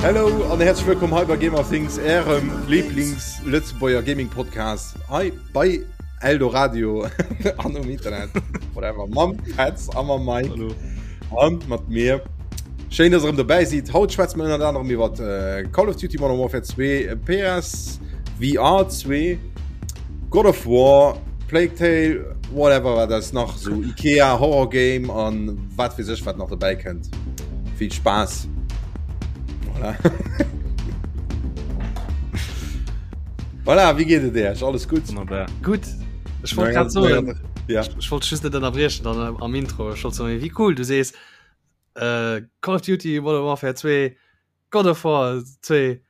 Hello an häerzlech wëllkomm hei bei Gamer Things, ärem Lieblings-Lëtzebuerger Gaming-Podcast hei bei Eldoradio an um Internet. Whatever. Mam Petz a mam Mike. Hallo. An mat mir. Schéin, dass ihr erëm dobäi sidd. Haut schwätze mir ënnert anerem iwwer äh, Call of Duty Modern Warfare 2, PS VR 2, God of War, Plague Tale, whatever wat das nach so Ikea Horror Game an wat fir sech wat nach dobäi kënnt. Vill Spaass. Voilà. Voilà, wéi geet et Iech? Alles gutt? Wunnerbar. Gutt. Ech wollt grad soen, ja. ech wollt just net ënnerbriechen dann am Intro. Ech wollt soen, wéi cool, du sees äh, Call of Duty Modern Warfare 2, God of War 2,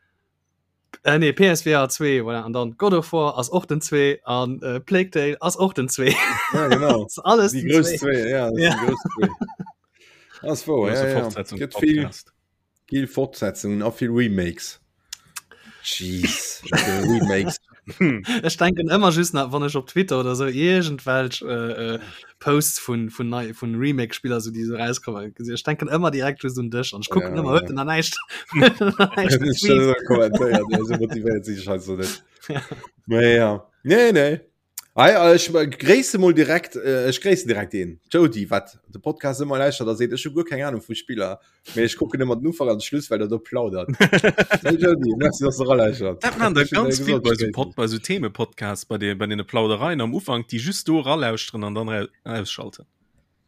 äh, nee, PSVR 2, voilà, an dann God of War ass och den 2 an äh, Plague Tale ass och den 2. Ja, genau. Das ist alles Die den grouss 2. 2, ja, das Ja. die grouss 2. Das ist wahr, Große ja, ja. Fortsetzung Gëtt vill, Podcast. vill Fortsetzungen a vill Remakes. Jeez, Remakes. Ech denken ëmmer just nach, wann ech op Twitter oder sou iergendwelch äh, äh, Posts vun, vun, nei, vun Remake-Spiller so, déi so rauskommen gesinn. Ech denken ëmmer direkt just un dech an ech kucken Ja, ëmmer, ja. huet en nach näischt huet en nach näischt Ech getweet? net kommentéiert, ja, so motivéiert sinn ech halt so net. Ja. Mee ja. Nee, nee. Ei, äh, ech äh, gréisse mol direkt äh, ech gréissen direkt een Jody wat de Podcast ëmmer lauschtert a seet ech hu guer keng Ahnung vu Spiller mee ech kucken ëmmer den Ufank an de Schluss well der do plaudert. Hey Jody, merci dass du eralauschtert. Dat man der Ech hunn ganz dir vill gesot, bei ech so gréissen Pod, bei so Themepodcasts bei de bei den Plaudereien am Ufank, déi just do eralauschteren an dann ra ausschalten.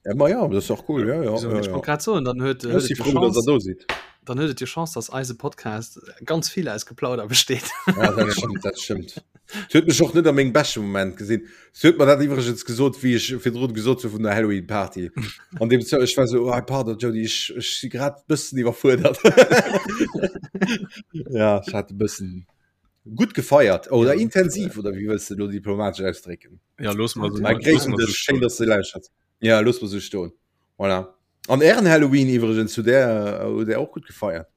Ja, ma ja, das ist auch cool. Ja, ja, So, ja, ich ja. wollt grad soen, dann huet, Ech huet si et jo froh, dass der Chance, do sidd. dann huet et jo Chance, dass eise Podcast ganz vill aus Geplauder besteet. Ja, dat stimmt, dat stimmt. Se huet mech och net a mengem beschte Moment gesinn. Se huet mer dat iwwregens gesot, wéi ech virdrun gesot hu vun der Halloween Party. An dem Zo ech war so, oh, pardon Jody, ech, ech si grad bëssen iwwerfuerdert. ja, ech hat e bëssen gutt gefeiert oder Ja, intensiv oder wéi wëlls de lo diplomatesch ausdrécken? Ja, looss mal so, Mä looss gréissen mal so dech, schéin, stoen. dass de lauschterts. Ja, looss mer sou stoen. Voilà. An Ären Halloween iwwregens, hutt där, hutt där och gutt gefeiert?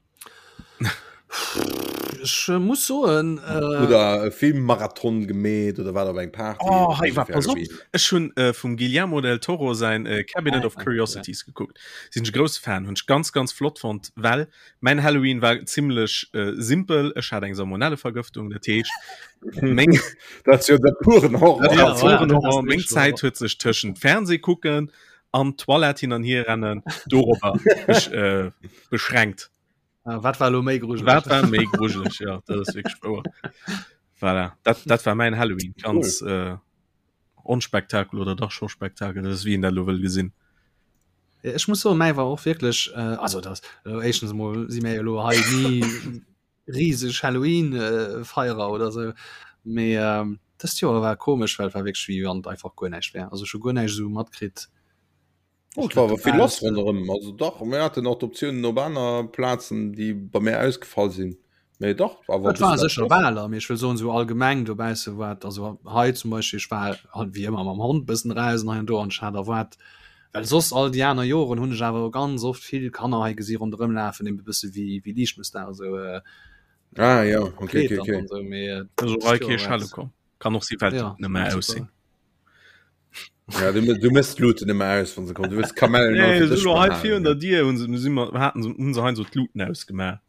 Ech äh, muss soen, äh, Oder e Filmmarathon gemeet oder wat op eng Party? Oh, oder hei so war fir pass op. Halloween? Ech hunn äh, vum Guillermo del Toro säin äh, Cabinet Ah, of ja. Curiosities geguckt. Sinn ech e grousse Fan, hunn ech ganz ganz flott fonnt, well Mäin Halloween war zimmlech äh, simpel. Ech hat eng Salmonellevergëftung, dat heescht meng Dat jo de puren Horror. Dat Ja, war puren ja, dat Horror. ass Meng wierklech Zäit huet sech tëschent Fernseh kucken an Toilette hin an hier rennen dorobber besch, äh, beschränkt. Ah, wat war lo méi grujeleg? Wat war méi grujeleg? Ja, dat ass wierklech wouer. Voilà. Dat, dat war mäin Halloween. Ganz äh, Onspektakel oder dach scho Spektakel, dat ass wéi een dat elo wëll gesinn. Ech muss soen, mäi war och wierklech, äh, also dat äh, éischtens emol si mir jo elo hei ni riseg Halloween-Feierer oder sou, mee ähm, dëst Joer war komesch, well et war wierklech wéi wann et einfach guer näischt wär. Also ech hu guer näischt esou matkritt. Oh, et war awer vill lass ronderëm. Also dach, mir haten och d'Optiounen op aner Plazen, déi bei mir ausgefall sinn. Mee dach, awer Et war sécher Waler, mee ech wëll soen, esou allgemeng dobausse war et, also hei zum Beispill, ech war halt wéi ëmmer mam Hond bëssen eraus an hei an do an ech hat erwaart, well soss all déi aner Joren hunn ech awer ganz oft vill Kanner hei gesi ronderëm lafen, eben e bësse wéi wéi Liichtmëssdag esou Ah ja, okay, verkleet okay, an okay. an esou, mee Also dëst hei Joer kee war Schelle et komm. Kann och si well ja, net méi super. aussinn. Ja, du, du mëss d'Luten ëmmer aus, wann se kommen. Du wëlls Kamellen Nee, auf den Dësch so hei behalen, virun ja. der Dier hunn se, si mer, haten se, hunn se hei so d'Luten ausgemaach.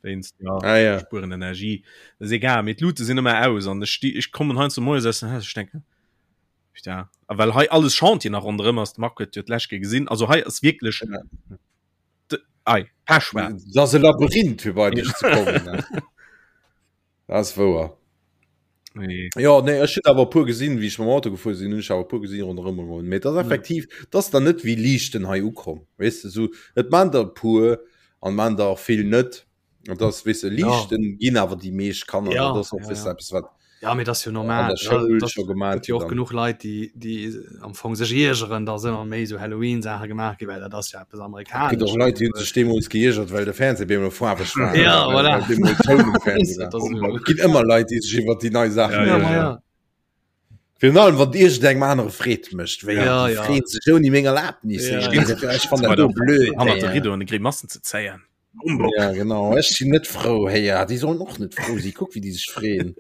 Wéinst, ja, Ah, ja. spueren Energie. Das ist egal, mee d'Lute sinn ëmmer aus an ech sti, ech kommen heiansdo moies aus dem Haus, ech denken, ja, a well hei alles Chantier nach ronderëm ass, de Marc huet jo d'lescht Kéier gesinn, also hei ass wierklech Ja. de, ei, pechschwaarz. Dat ass e Labyrinth, fir bei dech ze kommen. Ne? Dat ass wouer. Nee. Ja, nee, ech hunn awer e puer gesinn, wéi ech mam Auto gefuer sinn, hunn ech awer e puer gesinn ronderëm goen. Mee dat ass effektiv, dat ass dann net wéi Liichten hei ukomm. Weess de, sou, et maan der e puer an maan der och vill net. An dat ass, weess de, Ja. Liichten ginn awer déi meescht Kanner. Ja, Dat ass och, ja, weess de, ja. eppes wat Ja, mee dat ass jo an normal. der Schoul Ja, dat scho gemaat gëtt jo gëtt och an. genuch Leit, déi, déi am Fong sech iergeren, dass ëmmer méi esou Halloween-Saache gemaach ginn, well dat ass jo eppes Et gëtt och Amerikanesches. Leit, déi hunn sech deemools geiergert, well de Fernseh bemol faarweg war Ja, oder well, voilà. well bemol Toun um Fernseh Dat war. ass esou. Et ginn ëmmer Leit, déi sech iwwer déi nei Saachen Ja, Ja, ja, ma ja. ja. Virun allem wann iergendengem anere Freed mécht, wéi Ja, déi ja. freeën sech ouni meng Erlaabnis. Ja, Ech ja. ginn ech fannen Bei dat do der blöd. hannert de Héier. Riddoen de Grimassen ze zéien. Humbug. Ja genau, ech sinn net frou héier. Déi sollen och net frou sinn. Kuck wéi déi sech freeën.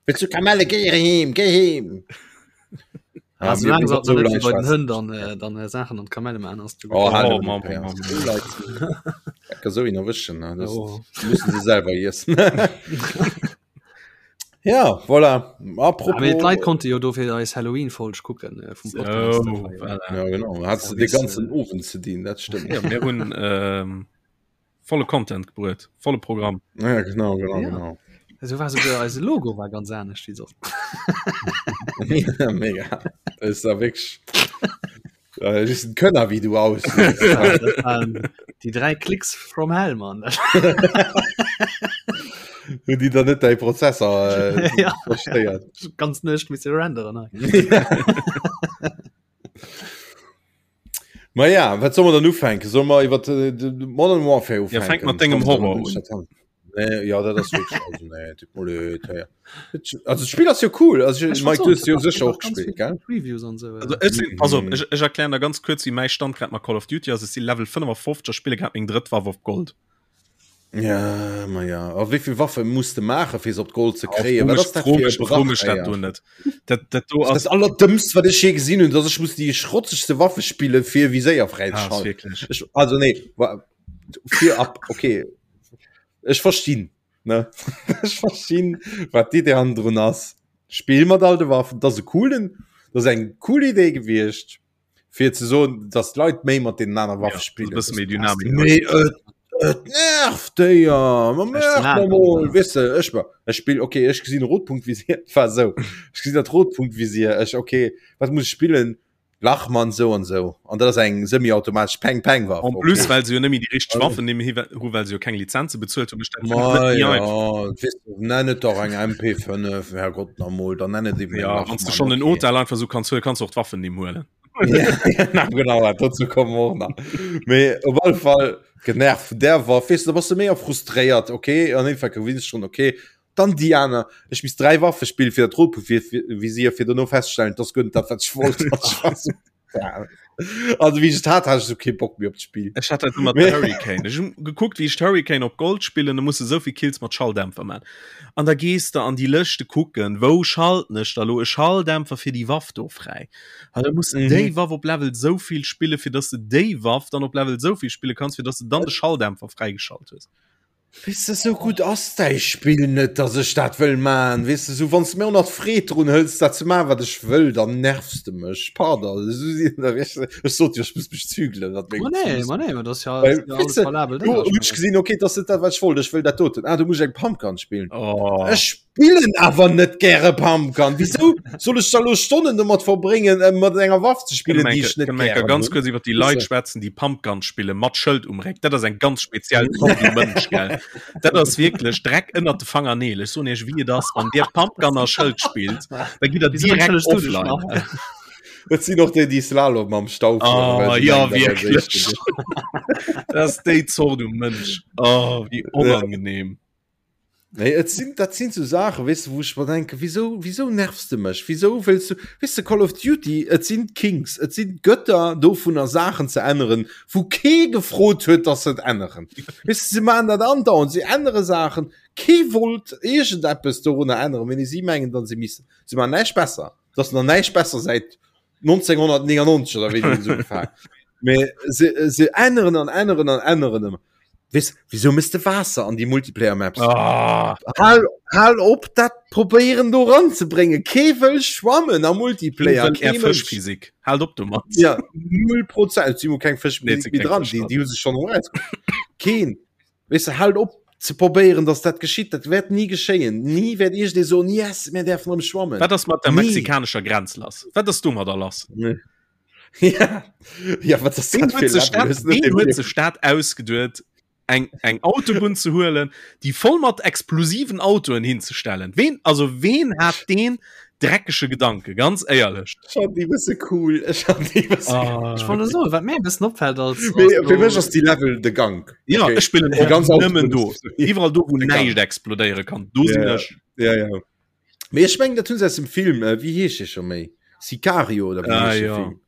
Wëlls du Kamelle? Géi heem, géi heem. Ja, also, mir so so bei den Hënn dann, äh, dann äh, Sachen an Kamelle man ass du oh, oh, Mann, Mann, Mann. so ihn erwischen ne? das oh. müssen sie selber essen ja voilà apropos ja, Leit konnte jo dofir eis Halloween Folg kucken äh, vum Podcast oh, voilà. ja, genau hat ja, den ganzen äh, Ofen ze dienen dat stimmt ja, mir hun ähm, volle Content gebruet, volle Programm. Ja, genau, genau, ja. genau. So war sogar eise Logo war ganz anescht wie sonst. ja, mega. Das ist da wirklich. Äh, das ist ein Könner, wie du aus. Die drei Klicks from hell, Mann. Hun die da net dei Prozessor äh, ja. verstéiert. Ganz nicht mit renderen. Ma ja, wat soll man dann ufänken? Soll man iwwer äh, de Modern Warfare ufänken? Ja, fänk mat dengem Horror un. Nee, ja, dat ass wirklich, also, nee, tut mir leid, ja. Also, das Spiel ass jo cool. Also, ich, Mike, du hast jo sicher och gespielt, gell? Previews an so. Also, ech sinn, pass op, ech, ech erklären der ganz kurz, wéi mäi Stand grad mat Call of Duty ass. Ech si Level 55 a spille grad meng drëtt Waff op Gold. Ja, ma ja. A wéi vill Waffe muss de maachen, fir se op d'Gold ze kréien? Wat ass dat fir e Brach, Fro mech dat do net. Dat, dat do ass. Dat allerdëmmst, wat ech je gesinn hunn, dass ech muss déi schrotzegste Waffe spillen, fir Viséier fräizeschalten. Ah, ech, also nee, fir ab, okay. Ech verstinn, ne? Ech verstinn, wat d'Idee hannendrun ass. Spill mat all de Waffen, dat ass e coolen, dat ass eng cool Idee gewiescht. fir ze soen dass d'Leit méi mat deenen aner Waffe ja, spillen bësse méi Dynamik mee et, et nervt déier ma mol wisse ech war ech spill okay ech gesinn Rotpunktvisier war sou ech gesinn dat Rotpunktvisier ech okay wat muss ech spillen Lachmann sou an sou an dat ass eng semi-automatesch Peng Peng Waff en plus okay. well se jo nëmme déi richteg Waffen nëmme hi hu well se jo keng Lizenze bezuelt hu Ma ja, nenn et dach eng MP5 Herrgott nach mol dann nenn et eben ja, wann du schon den Hotel einfach so kannst huelen kannst du och d'Waffen nimm huelen ja, genau dazu kommen wir och nach mee op alle Fall genervt vun där Waff weess du da bass du méi frustréiert okay an Endeffekt gewinns schon okay dann déi aner ech misst 3 Waffe spillen fir dat Rotpunkt-Visier fir dono feststellen dass guer net dat wat ech wollt Ja. Also wie ich hat hat ich so keinen Bock mehr op d'Spiel. Ech hat dat mat Hurricane. Ech hun gekuckt wéi ech d'Hurricane op Gold spillen, da muss de souvill Kills mat Schalldämpfer man. An da gees de an déi Lëschte kucken, wou schalten ech da lo e Schalldämpfer fir déi Waff do fräi. An da muss de mhm. déi Waff op Level souvill spille fir dass de déi Waff dann op Level souvill spille kanns, fir dass de dann de Schalldämpfer fräigeschalt hues. Weess de, sou gutt ass däi Spill net, dass ech dat wëll man. Weess de, sou wann s de mir och nach d'Freed drun hëls, dat ze man, wat ech wëll, dann nervs de mech. Pardon, esou sinn der wéi ech, ech sot jo, ech muss mech zügelen, wat meng Ma nee, ma nee, ma dat ass ja, Well, ja alles valabel. Do hunn ech gesinn, okay, dat ass net dat, wat ech wollt, ech wëll dat doten. Ah, do muss ech eng Pumpgun spillen. Oh. Ech spillen awer net gäre Pumpgun. Wisou soll ech da lo Stonnen domat verbréngen, äh, mat enger Waff ze spillen, déi ech net gären ganz kurz iwwer déi Leit schwätzen, déi Pumpgun spille mat Schëld um Réck. Dat ass eng ganz speziell Zort vu Mënsch, gell? Dat ass wierklech Dreck ënnert de Fangerneel. Ech soen iech, wéi et ass, wann dir Pumpgun a Schëld spillt, da gitt der direkt offline. Dat sinn och déi, déi Slalom am Stau fueren. Oh, ja, wierklech. Dat ass déi Zort u Mënsch. Oh, wéi onangenehm. Nee, et sinn, dat sinn so Saachen, weess de, wou ech mer denken, wieso, wieso nervs de mech? Wieso wëlls du, weess de, Call of Duty, et sinn d'Kings, et sinn d'Götter dovunner Saachen ze änneren, wou kee gefrot huet, dass se et änneren. Weess de, se maachen dat andauernd, se ännere Saachen, kee wollt iergendeppes dorunner änneren, mee si mengen dann, se missten. Se maachen näischt besser, et ass nach näischt besser säit 1999 oder wéi déi se ugefaangen. Mee se, se änneren an änneren an änneren ëmmer. Wees, wieso misst de Waasser an die Multiplayer Maps? Ah. Hal, hal op dat probéieren do ranzebréngen. Kee wëll schwammen am Multiplayer. Kee Fëschphysik. Halt op domat. Ja, 0 Prozent. Si keng Fëschphysik méi dran. Déi, déi hu sech schon eraus. Keen. Wees du, halt op ze probéieren, dass dat geschitt. Dat wäert nie geschéien. Nie wäert iergendee soen, yes, mir däerfen erëm schwammen. Wat ass mat der mexikanescher Grenz lass? Wat ass domadder lass? Nee. Ja, ja wat ass dat fir Level? Ween huet sech dat ausgeduet, eng, eng Autobunn ze huelen, déi voll mat explosiven Autoen hinzestellen? Ween, also ween hat deen dreckege Gedanke, ganz éierlech? Ech fand déi bësse cool. Ech fand déi bësse ah. Ech wollt soen, wat mir e bëssen opfält als, als Fir fir mech ass déi Level de Gank. Ja, okay. ech spillen och ganz nëmmen do. Iwwerall do, wou näischt explodéiere kann, do sinn ech. Ja, ja. Mee ech mengen dat hunn se aus dem Film, äh, wéi heescht dee scho méi? Sicario oder wéi ah, heescht ja. Film?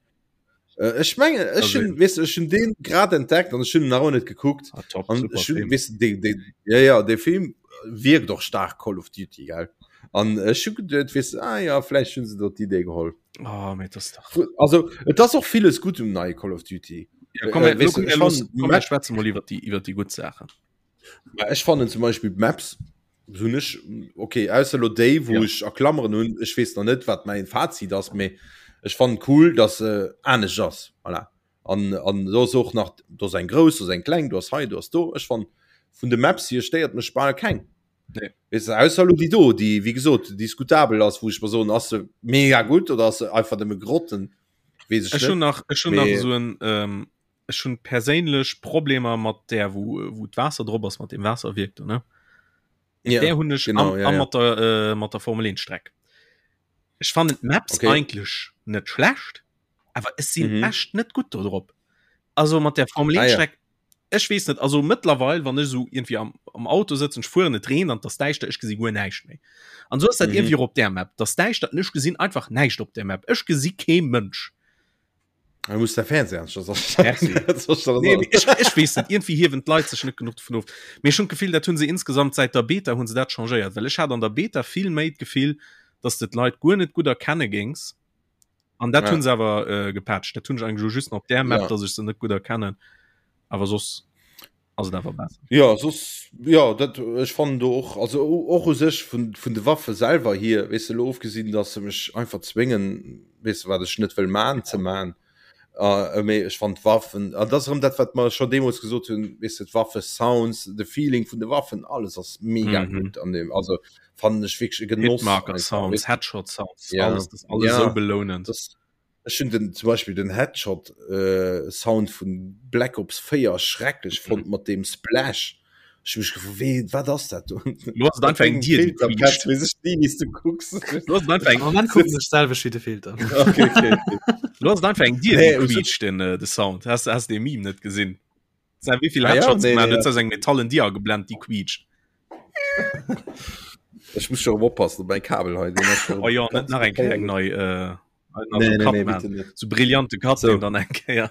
Äh, ech mengen ech hun, weess ech hun deen grad entdeckt an ech hun nach net gekuckt. Ah, top, an ech hun, weess de, de, ja, ja, de Film wierkt och stark Call of Duty gell. An ech hu geduet, weess de, ah ja, vläicht hunn se do d'Idee geholl. Oh, mee das dach. Also et ass och villes gutt um neie Call of Duty. Ja, komm, äh, weißt du, ich fand, komm, wir schwätzen mal iwwer déi iwwer déi gutt Saachen. Ech fannen zum Beispill d'Maps hunn ech okay ausser lo déi wou ja. ech a Klammeren hunn ech weess nach net wat mäin Fazit ass mee ech fannen cool dass se anescht ass voilà. An an do ass och nach do ass eng grouss do ass eng kleng do ass hei do ass do ech fann vun de Maps hier stéiert mech bal keng. Nee. Weess de, ausser lo déi do déi wéi gesot diskutabel ass wou ech mer soen ass se mega gutt oder ass se einfach nëmme Grotten weess ech Ech hunn net. nach ech hunn nach Mee esou en ähm, ech hunn perséinlech Problemer mat där wou wou d'Waasser drop ass mat dem Waasserwierk do ne. Ja, Där hunn ech genau, am, ja, am ja. mat der äh, mat der Formel 1 Streck. Ech fannen d'Maps Okay. eigentlech net schlecht, awer ech sinn Mhm. echt net gutt do drop. Also mat der Formel 1 Ah, ja. Streck ech weess net, also mëttlerweil wann ech esou irgendwie am, am Auto sëtzen, ech fueren, et reent an et ass däischter, ech gesi guer näischt méi. An esou ass dat Mhm. irgendwie och op där Map, et ass däischter an ech gesinn einfach näischt op där Map. Ech gesi kee Mënsch. Du muss der Fernseher nee, ich, ich wees net irgendwie hiewen d'Leit sech net genug vun of. Mir schon Gefill dat hunn se insgesamt seit der Beta hunn se dat changéiert, well ech hat an der Beta vill méi d'Gefill, dass de d'Leit guer net gut erkenne gings. An dat ja. hunn se awer äh, gepatcht. Dat hunn ech eigentlich just op der Map, ja. dass ech se net gut erkennen. Awer soss ass et awer besser. Ja soss ja dat ech fannen do och also och u sech vun vun de Waffe selwer hier weess de lo ofgesinn dass se mech einfach zwéngen weess de wat ech net wëll man ze man uh, mee ech fand d'Waffen an dat ass erëm dat wat mer scho deemools gesot hunn weess de d'Waffe Sounds de Feeling vun de Waffen alles ass mega mm -hmm. gutt an dem also fannen ech wierklech e Genoss Hitmarker einfach, Sounds weess de. Headshot Sounds Ja. alles das alles Ja. sou belounend. Das, Ech hunn den zum Beispill den Headshot äh, Sound vun Black Ops 4 schrecklech fonnt mat deem Splash. Ech hu mech gefrot, wéi, wat ass dat do? Lo ass et einfach eng Dier, déi quietscht. Weess ech ni, wéi s du kucks. Lo ass et einfach eng Am Moment kucken ech d'selwecht wéi de Filter. Okay, okay, okay. Lo ass et einfach eng Dier, Nee, déi u sech- quietscht, den, äh, de Sound. Has, has de Meme net gesinn? Sei, wéi vill Ah ja, Headshots nee, gemaach nee, huet, ass eng metallen Dier ageblent, déi quietscht. Ech muss scho erëm oppassen op mäi Kabel hei. deen ass scho Oh jo, net ganz nach eng Kéier eng geféierlech. nei, äh, Nee, nee, nee, bitte net. So brillante Cut so. dann eng Kéier.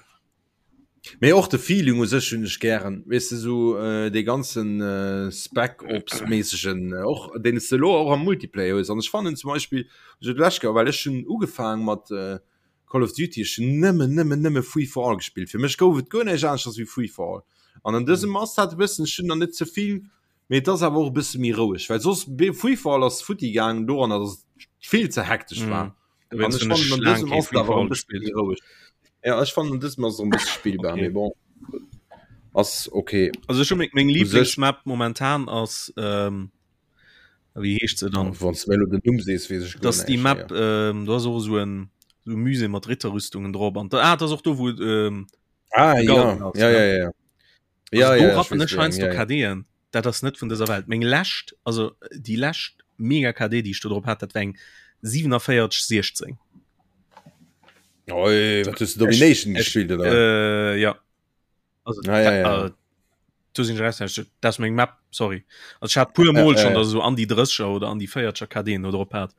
Mee och de Feeling u sech hunn ech gären, weess de sou äh, dee ganzen äh, Spec Ops méissegen äh, och deen s de lo och am Multiplayer hues. An ech fannen zum Beispill so d'lescht Kéier, well ech hunn ugefaang mat äh, Call of Duty, ech hunn nëmmen nëmmen nëmme Free for All gespillt. Fir mech gouf et guer näischt aneschters wéi Free for All. An an dësem ass dat e bëssen, ech hunn der net ze vill, mee et ass awer och e bësse méi roueg, well soss Free for All ass futti gaangen doranner, datt et vill ze hektesch war. Mm. An ech fannen an dësem ass et awer e bësse méi roueg. Ja, ech fannen an dësem ass et e bësse spillbar, Okay. mee bon, ass okay. Also ech hu meng, meng U sech- Lieblingsmap momentan ass ähm, wéi heescht se dann? Wann s du mir elo den Numm sees, weess ech guer Das déi näischt Map méi. ähm, do ass och esou en so e Musée mat Ritterrüstungen drop an da, ah, dat ass och do wou ähm, Ah de ja, Garden ass, ja, ne? ja, ja. Ja, Also do ja, ech rappen weess ech wéi eng, heiansdo ja, ja. KDen. Dat ass net vun dëser Welt. Meng lescht, also déi lescht mega KD, déi ech do drop hat, dat war eng 47 16. Oi, wat hues du Domination Ech, gespillt oder? äh, ja. Also, Ah, ja, ja. da, äh, do sinn ech raus, dat ass meng Map, sorry. Also ech hat puer Mol Ja, schon, ja. dass ech esou an déi 30er oder an déi 40er KDen do drop hat.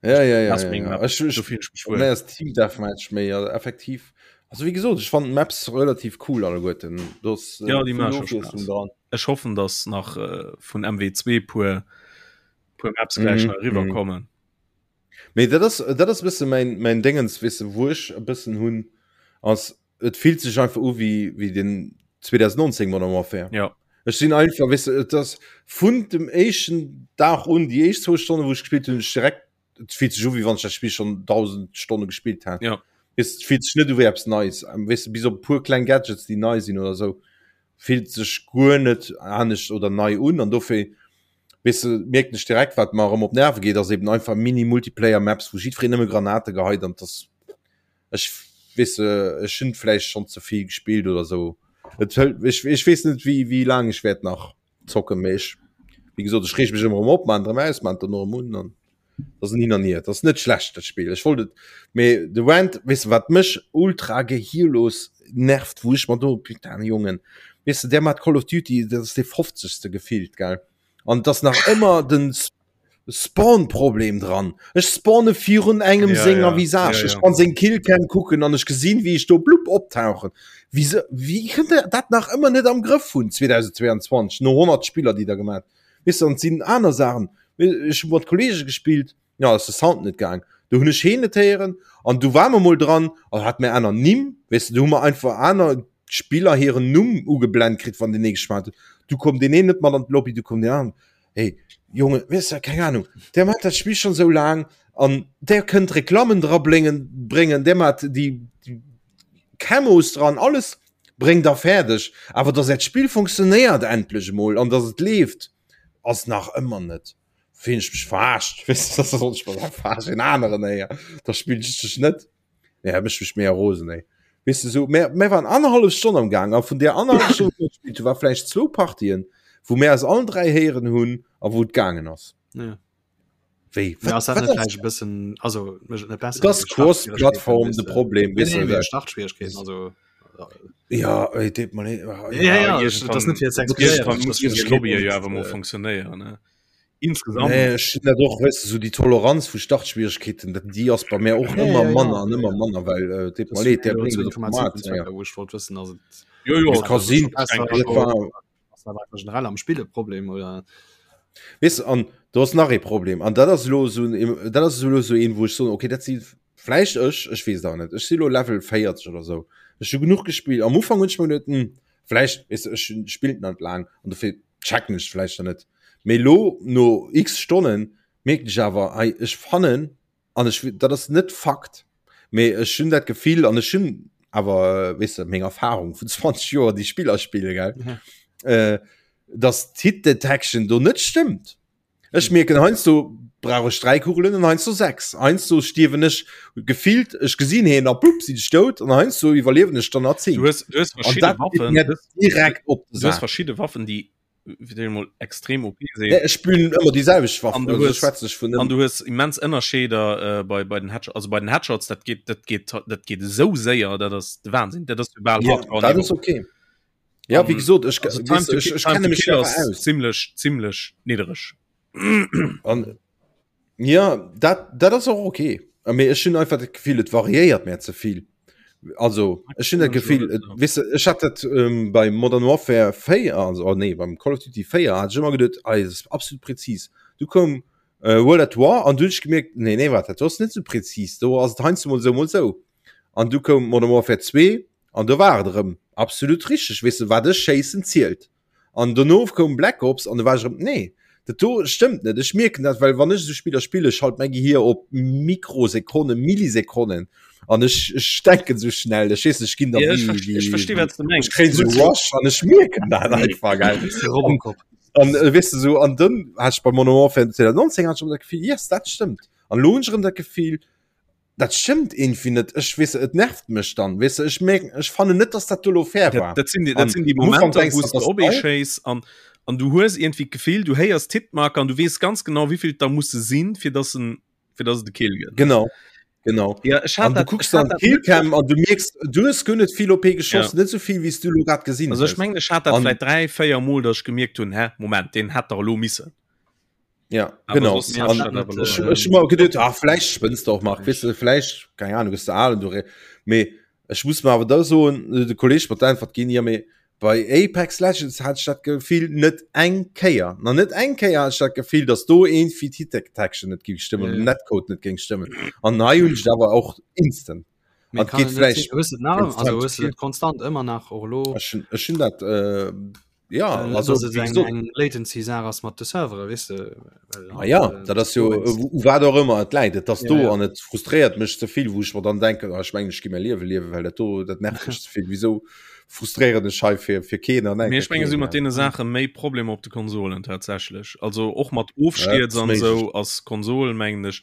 Ja, ja, ja, Das ja, meng ja. Map. Ech, ech, Do fillen ech mech wuel. Nee, ass Team Deathmatch méi also effektiv. Also wéi gesot, ech fand Maps relativ cool alleguerten. Do ass äh, Ja, déi vill maache scho Ofwiesslung Spaass. dran. Ech hoffen, dass nach äh, vun MW2 puer puer Maps gläich Mhm, nach mhm. eriwwerkommen. Mee dat ass dat ass e bësse mäin mäin Déngens, weess de, wou ech e bëssen hunn, ass et fillt sech einfach u wéi wéi den 2019 Modern Warfare. Ja. Ech sinn einfach, weess de, et ass vun dem éischten Dag un, déi éischt zwou Stonne wou ech gespillt hunn, ech direkt, et fillt sech u wéi wann ech dat Spill schonn 1000 Stonne gespillt hätt. Ja. Weess, et fillt sech net u wéi eppes Neies, weess de, bis op e puer kleng Gadgets, déi nei sinn oder esou, fillt sech guer net anescht oder nei un an dofir weess de, mierken ech direkt, wat mer erëm op d'Nerve geet, ass eben einfach Mini-Multiplayer-Maps, wou jiddwereen nëmme Granate geheit an dass ech weess de, ech hunn vläicht schonn ze vill gespillt oder sou. Et hëlt, ech, ech weess net wéi, wéi laang ech wäert nach zocken, mee ech, wéi gesot, ech reeg mech ëmmer erëm op, maan et erëm aus, maan et dann erëm un an dat ass en Hin an Hier. Dat ass net schlecht dat Spill, ech wollt et, mee de Rant, weess de wat mech ultra gehirlos nervt, wou ech mer do, putain Jongen, weess de, där mat Call of Duty, dat ass dee fofzegste gefillt, gell, an et ass nach ëmmer den Spawn-Problem dran. Ech spawne virun engem Ja, senger ja. Visage. Ja, Ech ja. kann seng Killcam kucken an ech gesinn, wéi ech do blupp optauchen. Wéi se, wéi kënnt der dat nach ëmmer net am Grëff hunn 2022, no 100 Spiller, déi der gemaat? Weess de, an et sinn aner Saachen. Ech hu mat Kollege gespillt, ja ass de Sound net gaang. Du hunn ech heen net héieren an du war mer mol dran an hat mir aner Nimm, weess de, du hu mer einfach aner Spiller hiren Numm ugeblent kritt, wann deen ee geschwat huet. Du koum deen een net mat an d'Lobby, du koum deen aneren. Hey, Jonge, weess de, keng Ahnung, der mat dat Spill schon sou laang an der kënnt Reklammen dra bléngen, bréngen, der mat déi, déi Camos dran, alles bréngt der fäerdeg. Awer dass äert Spill funktionéiert endlech emol an dass et leeft, ass nach ëmmer net. Fillen ech mech verarscht, weess de, dass soll ech mech verarschen, en aneren éier, da spillen ech dech net. Nee, dat mécht mech méi rosen, ey. Weess de, sou, mär, mär waren annerhallef Stonn am Gaang a vun där annerhallef Stonn, wou mer gespillt hunn, war vläicht zwou Partien, wou mär eis allen 3 héieren hunn a wou et gaangen ass. Ja. Wéi? Ja, ass dat net vläicht e bëssen, also mécht et net besser? Et ass Cross-Plattform de Problem, weess de. Startschwierigkeeten, also. Ja, ey, deet mer leed. Ja, ja, ja, dat ass net fir ze expliquéieren. Muss déi Lobby jo awer mol funktionéieren, ne? Insgesamt. Nee, ech hunn dat och, weess de, sou déi Toleranz vu Startschwierigkeeten, dat déi ass bei mär och ëmmer manner an ëmmer manner, well äh, deet mer leed, där bréngt et op d'Maat. Ja. Wou ech wollt wëssen, ass et Jo, jo, Et ka sinn, dat war ass dat einfach generell am Spill e Problem oder? Weess de, an do ass nach ee Problem, an dat ass elo esou en, dat ass elo esou een, wou ech soen, okay, dat si vläicht ech, ech weess et awer net, ech si elo Level 40 oder esou, ech hu genuch gespillt, am Ufank hunn ech mer geduet, hm, vläicht, weess de, ech spillt net laang an dofir checken ech vläicht dann net. Mee elo no x Stonnen mierken ech awer, hei ech fannen, an ech dat ass net Fakt, mee ech hunn dat Gefill an ech hunn awer weess de meng Erfahrung vun 20 Joer déi Spiller spille gell, Ja. äh, dass d'Hit Detection do net stëmmt. Ech mierken heiansdo brauch ech 3 Kugelen an heiansdo 6. Heiansdo stierwen ech gefillt, ech gesinn heen a plupp sinn ech dout an heiansdo iwwerliewen ech dann nach 10. Du hues, du hues An verschidde dat geet Waffen, mir direkt op de du hues Sak. verschidde Waffen, déi fir déi mol extrem OP sinn. Nee, ech spillen ëmmer déi selwecht Waff, An du also hues, schwätzen ech vun an du hues immens Ënnerscheeder äh, bei, bei den Headshots, also bei den Headshots, dat geet, dat geet, dat geet esou séier, dat ass de Wahnsinn, dat ass jo bal Ja, dat ass Hardcore-Niveau. okay. Ja, wéi An gesot, ech, also Time weess, to ech, kill, ech Time kenne to mech kill awer ass aus. zimmlech, zimmlech niddereg. An ja, dat, dat ass och okay. Mee ech hunn einfach dat Gefill, et variéiert mir ze vill. Also ech hunn dat Gefill, et, weess de, ech hat dat ähm, bei Modern Warfare 4, also oh nee, beim Call of Duty 4 hat ech ëmmer geduet, ah, dat ass absolut präzis. Du koum äh, World at War an du hunn ech gemierkt, nee, nee, wat, dat ass net sou präzis. Do ass et heiansdo mol sou, mol sou. An du koum Modern Warfare 2 an do war et erëm absolut richteg, weess de, wat ech schéissen zielt. An dono koum Black Ops an do war ech erëm, nee, dat do stëmmt net. Ech mierken dat, well wann ech esou Spiller spillen, schalt mäi Gehier op Mikrosekonnen, Millisekonnen an ech, ech denken esou schnell, ech weess net, ech ginn da Ja, ech wéi, versti- ech wéi, versti, wat s du mengs. ech kréien esou Rush an ech mierken dat einfach, gell. Robocop. An äh, weess de sou, an dann hat ech bei Modern Warfare 2019 hat ech erëm dat Gefill, yes, dat stëmmt. An elo hunn ech erëm dat Gefill, Dat stëmmt irgendwie net. Ech weess, et nervt mech dann. Weess de, ech merken, ech fannen net, dass dat do lo fair war. Dat, dat sinn déi, dat sinn déi Momenter, wou s de op ee schéiss an, an du hues irgendwie d'Gefill, du héiers d'Hitmarker an du weess ganz genau, wéi vill et der musse sinn, fir dass en, fir dass et e Kill gëtt. Genau, genau. Ja, ech hat An du dat, kucks ech hat dann dat d'Killcam an du mierks, du hues guer net vill OP geschoss, Ja. net sou vill, wéi s du lo grad gesinn Also ech hues. mengen, ech hat dat An vläit 3, 4 Mol, dass ech gemierkt hunn, hä, Moment, deen hätt dach elo missen. Ja, Aber genau. sonst hat An dat awer ech, lo, ech immer geduet, ah, vielleicht spënnst du och Marc, weißt du, vielleicht, keine Ahnung, bist du al und du re mee ech muss mir awer da soen, äh, de Kolleg mat d'Äntwert ginn, ja, mee bei Apex Legends hat ech dat Gefill net eng Kéier, na net eng Kéier hat ech dat Gefill, dass do irgendwie d'Hit Detection net géing stëmmen, Ja, den ja. Netcode net géing stëmmen. An hei hunn ech et awer och instant. Mee An kann geht et net vielleicht sinn, hues du et nach, wenn's also Time to hues du kill. dat konstant ëmmer nach och elo? Ech hunn, ech hunn dat, äh, ja, Äh, also dass et wéi eng, gesot, eng Latency-Saach ass mat de Servere, weess de, well Ah halt, ja, äh, dat ass jo dowéinst. u wat och ëmmer et läit, et ass Ja, do ja. an et frustréiert mech ze vill, wou ech mer dann denken, ah, ech mengen ech gi mäi Liewe liewen, well dat do dat nervt mech ze vill. Wisou frustréieren ech hei fir fir keen an Mee enker ech menge keen, si mat ja. deene Saache méi Problemer op de Konsolen tatsächlech. Also och mat Ja, dat Ofstierz ass an méiglech. esou ass Konsol mengen ech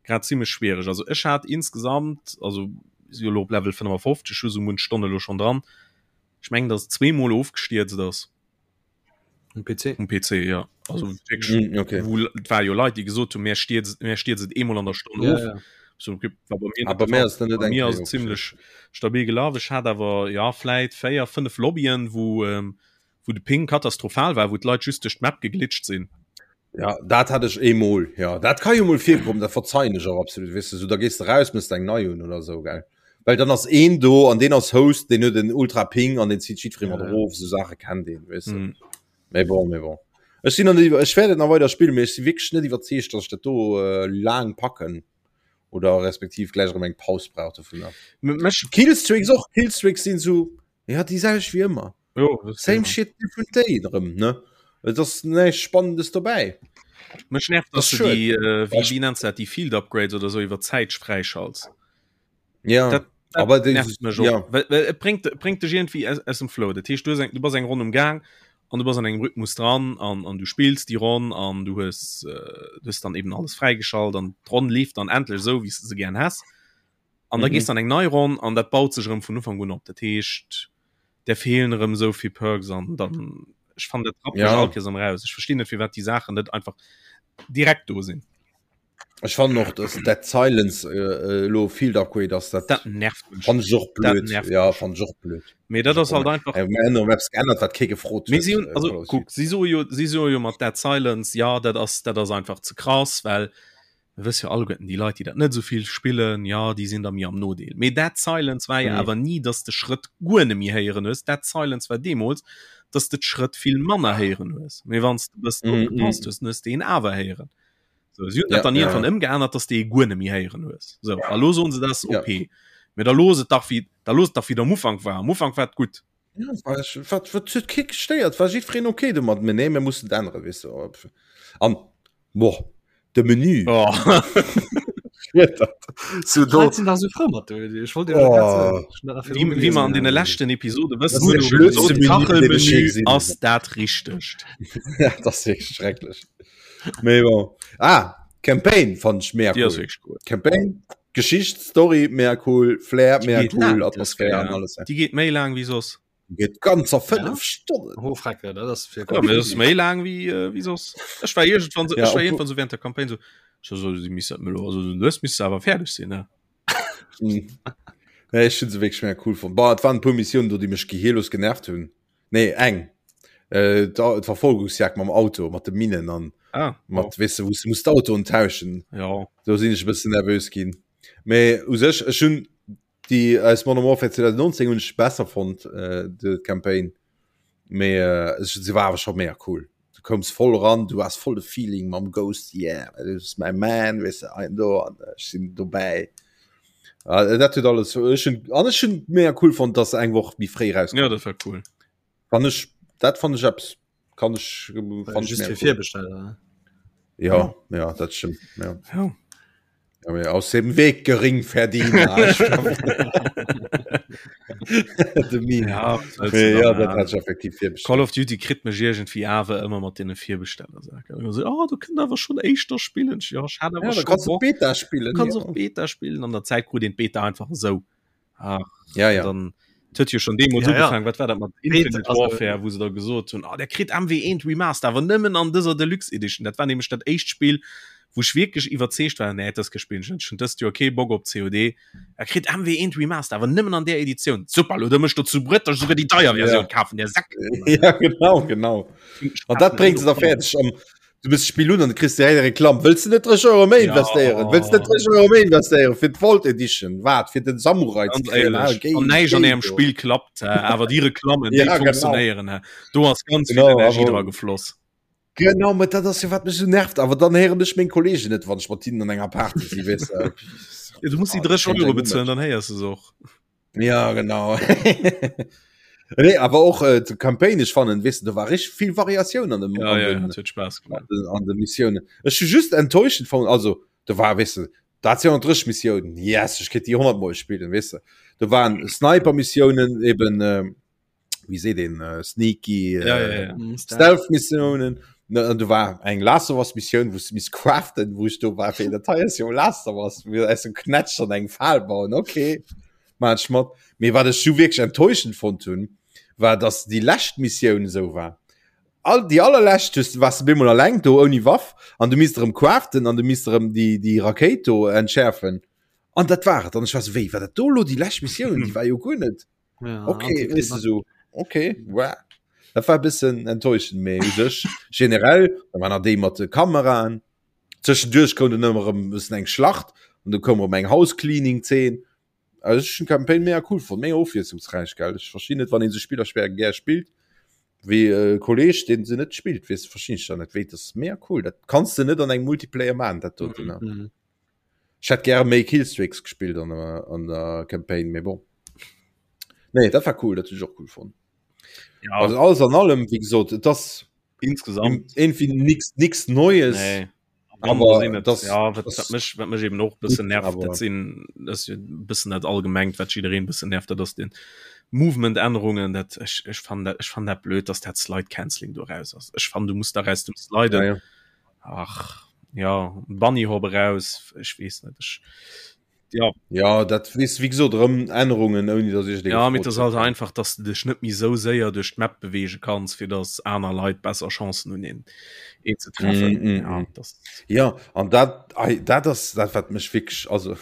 grad zimmlech schwiereg. Also ech hat insgesamt, also si jo elo op Level 55, hu sou munch Stonne elo schonn dran, ech mengen datt et zweemol ofgestierzt ass. Um PC? Um PC, ja. Also wierklech, Mm, okay. wou et war jo Leit, déi gesot hunn, mär stierzt, mär stierzt et eemol an der Stonn Ja, of. ja. So, okay, war bei mir Ah, net bei de mir Fall. ass dat net Bei eng mir Kéier ass et ofgestierzt. zimmlech stabil gelaf. Ech hat awer, ja, vläit 4, 5 Lobbyen, wou, ähm, wou de Ping katastrophal war, wou d'Leit just duerch d'Map geglitscht sinn. Ja, dat hat ech eemol, ja. Dat ka jo mol virkommen, dat verzeien ech och absolut, weess de, sou da gees de raus, mëss eng nei un oder sou, gell. Well dann ass een do an deen ass Host, deen huet en ultra Ping an deen zitt jiddweree mat Ja, ja. erof, sou Saache kennt een, weess de. Mm. Mee bon, mee bon. Ech sinn an ech wäert et nach weider spillen, mee ech si wierklech net iwwerzeegt, dass ech dat do äh, laang packen oder respektiv gläich erëm eng Paus brauch dovunner. Mech Killstreaks och, Killstreaks sinn sou, ja déi selwecht wéi ëmmer. Jo, das Same shit, different day erëm, ne? Et ass näischt Spannendes dobäi. Mech nervt, Das dass du schued. déi, äh, wéi, wéi nenns du dat, déi Field Upgrades oder sou iwwer Zäit fräischalts. Ja, Dat, dat aber déi, nervt mech och. ja. Well, well et bréngt, et bréngt dech irgendwie aus, aus dem Flow. Dat heescht, du hues eng, du bass eng Ronn um Gaang an du bass an engem Rhythmus dran an, an du spills déi Ronn an du hues, äh, du hues dann eben alles fräigeschalt an d'Ronn leeft dann endlech esou, wéi s de se gären häss. An da Mhm. gees du an eng nei Ronn an dat baut sech erëm vun Ufank un op. Dat heescht, der feelen erëm esou vill Perks an dann, ech fannen, dat rappt mech Ja. all Kéiers erëm raus. Ech verstinn net, firwat déi Saachen net einfach direkt do sinn. Ech fannen och dass Dead Silence äh, elo Field Upgrade ass dat Dat nervt mech. fand ech och Dat blöd. nervt Ja mech. fand ech och blöd. Mee dat ass halt einfach Äh, mir hunn eppes geännert wat kee gefrot Mee huet. si hunn, äh, also Call of kuck, Duty. si soe jo, si soe jo mat Dead Silence, ja dat ass, dat ass einfach ze krass, well mir wësse jo alleguerten, déi Leit, déi dat net esou vill spillen, ja déi sinn da méi am Nodeel. Mee Dead Silence war jo Mhm. awer ni, dass de Schrëtt guer net méi héieren hues. Dead Silence war deemools, dass de d'Schrëtt vill manner héieren hues. Mee wann s de e bëssen Mhm, opgepasst mhm. hues, dann hues de een awer héieren. So, si hunn Ja, dat dann ja, irgendwann ja. ëmgeännert, dass de e guer net méi héieren hues. So, a lo soen se, dat ass Ja. OP. Mee da looss et dach wéi, da looss et dach wéi et am Ufank war. Am Ufank war et gutt. Ja, war ich, wat, wat huet kee gestéiert, war jiddwereen okay domat, mee nee, mir mussen et änneren, weess de. An, boah, de Menü. Oh. So, do, Leit sinn da sou frou mat do. Ech wollt dir dat grad oh, soen. Ech hunn dat nach Wéi, virdru wéi mer gelesen. an deene leschten Episode das wëssen, ass hunn de ech schon blödste gesot, Menü, deen ech je Kachelmenü gesinn hunn. ass dat Richtegt. Ja, dat ass wierklech schrecklech. Mee bon. Ah, Campaign fand ech mega Déi ass cool. wierklech cool. Campaign, Geschicht, Story mega cool, Flair Déi mega geet cool, laang, dës Atmosphär an Kéier. alles. Déi geet méi laang wéi soss. Geet ganzer Ja? 5 Stonnen. Oh, Frecke, dat ass fir Ja, Call of mee dat ass Duty. méi laang wéi, äh, wéi soss. Ech war iergendwann so, Ja, ech war obwohl, iergendwann so während der Campaign so, so, so, si misst dat melo, also lues misst se awer fäerdeg sinn, ne? Mm. Nee, ech hunn se wierklech mega cool fonnt. Bah, et waren e puer Missiounen do, déi mech gehirlos genervt hunn. Nee, eng. Äh, d'Verfolgungsjagd mam Auto, mat de Minen an ah, mat, oh. weess de, wou s du muss d'Autoen tauschen. Ja. Do sinn ech e bëssen nervös ginn. Mee u sech, ech hunn déi aus Modern Warfare 2019 hunn ech besser fonnt, äh, de Campaign. Mee äh, ech, se war awer scho mega cool. Du koums voll ran, du has voll de Feeling mam Ghost, yeah, this is my man, weess de, ein do an ech sinn dobäi. Ah, dat huet alles ech hunn an ech hunn mega cool fonnt, dass se eng Woch méi fréi rauskoum. Ja, dat war cool. Fand ech dat fand ech eppes kann ech fand ech Just mega fir cool. Virbesteller, ne? Ja, ja, dat stimmt. Ja. Ja. Ja, mee aus dem Weg Geringverdiener. De Meme. Ja, was sollst du Mee da ja, dat machen? hat ech effektiv Call virbestellt. of Duty kritt mech iergendwéi awer ëmmer mat deene Virbestellersachen. Also, oh, du kënnt awer schon éischter spillen. Ja, ech hat awer Ja, da schon kannst du Bock. Beta Du spillen. kannst Ja. och Beta spillen. An der Zäit krut een d'Beta einfach esou. Ach, Ja, ja. dann huet jo schon deemools Ja, ja. ugefaangen, wat war dat mat Beta, Infinite also, Warfare, wou se da gesot hunn, ah, der kritt MW1 Remaster, awer nëmmen an dëser Deluxe Edition. Dat war nämlech dat éischt Spill, wou ech wierklech iwwerzeegt war, nee, dat spillen ech net, ech hunn dëst Joer kee Bock op COD. Er kritt MW1 Remaster, awer nëmmen an där Editioun. Super, lo da mech dozou bruet, dass ech souguer déi deier Ja. Versioun kafen, der Säck. Ja, genau, genau. An dat bréngt se da fäerdeg. Am, du bist Spill un an du kriss direkt eng Reklamm. Wëlls du net 30 Euro méi Ja. investéieren? Wëlls du net 30 Euro méi investéieren fir d'Vault Edition? Wat fir den Samurai ze Ganz kréien? Ah, éierlech, géi, an näischt an géi ärem do. Spill klappt, äh, awer déi Reklammen, déi Ja, genau. funktionéieren. Äh. Do ass ganz vill Genau, Energie awer dra gefloss. Genau, mä dat ass jo wat mech esou nervt. Awer dann héieren ech meng Kollegen net, wann ech mat hinnen an enger Party si, weess de. Ja, du muss déi Ah, 30 dat Euro kéint bezuelen, dann héiers du se och. Ja, genau. Nee, awer och äh, d'Campaign, ech fannen, weess de, do war richtig vill Variatioun an dem, Ja, an ja, den, dat huet Spaass gemaach. an den, an de Missiounen. Ech hu just enttäuschend fonnt, also do war, weess de, dat 230 Missiounen, yes, ech kéint déi 100 Mol spillen, weess de. Do waren Sniper-Missiounen, eben, äh, wéi seet een, äh, sneaky, äh, Ja, ja, ja. Mm, Stealth. Stealth-Missiounen. Ne, an do war eng Last of Us Missioun, wou s du misst craften, wou ech do war, fir dat hei ass jo Last of Us, mir aus dem Knätsch an eng Fal bauen, okay, maan ech mat. Mee wat ech du wierklech enttäuschend fonnt hunn, war, dass déi lescht Missioun esou war. All, déi allerlescht hues du, waars du bemol alleng do ouni Waff an du misst erëm craften an du misst erëm déi, déi Rakéit do entschäerfen. An dat war et. An ech war sou, wéi, war dat do elo déi lescht Missioun? Déi war jo guer net. Ja, okay, weißt du, so, okay, wow. Dat war e bëssen enttäuschend, mee u sech generell, da war nach déi mat de Kameraen. Zwischendurch koum dann ëmmer erëm e bëssen eng Schlacht an du koum erëm eng House-Cleaning-Zeen. Also ech hunn d'Campaign mega cool fonnt, mega ofwiesslungsräich, gell. Ech verstinn net, wann een sou Spiller schwéier gär spillt. Wéi e Kolleg deen se net spillt weess verstinn ech dann net wéi das mega cool dat kanns de net an engem Multiplayer man dat doten ne. Mhm. Ech hätt gäre méi Killstreaks gespillt an der, an der Campaign mee bon. Nee dat war cool dat hunn ech och cool fonnt. Ja, Also alles an allem wéi gesot et ass insgesamt irgendwie nix nix Neues. Nee. Aber sinn et, das- ja, wat, das- wat mech, wat mech eben och bëssen nervt, aber- dat sinn dat ass jo bëssen dat allgemengt, wat jiddereen bëssen nervt, dat ass den Movement-Ännerungen, dat ech, ech fannen dat, ech fannen dat blöd, dass dat Slide Cancelling do raus ass. Ech fannen, du muss da raus dem Sliden. Ja, ja. Ach, ja, Bunny Hop eraus, ech weess net, ech, ja. Ja, dat weess wéi gesot erëm Ännerungen, ouni datt ech déi Ja, mee gefrot et ass halt hätt. einfach, dass du dech net méi sou séier duerch d'Map beweege kanns, fir dass aner Leit besser Chancen hunn, een, een ze treffen. Mm, mm, Ja, mm. das, Ja, an dat, ei, dat ass dat, wat mech wierklech, also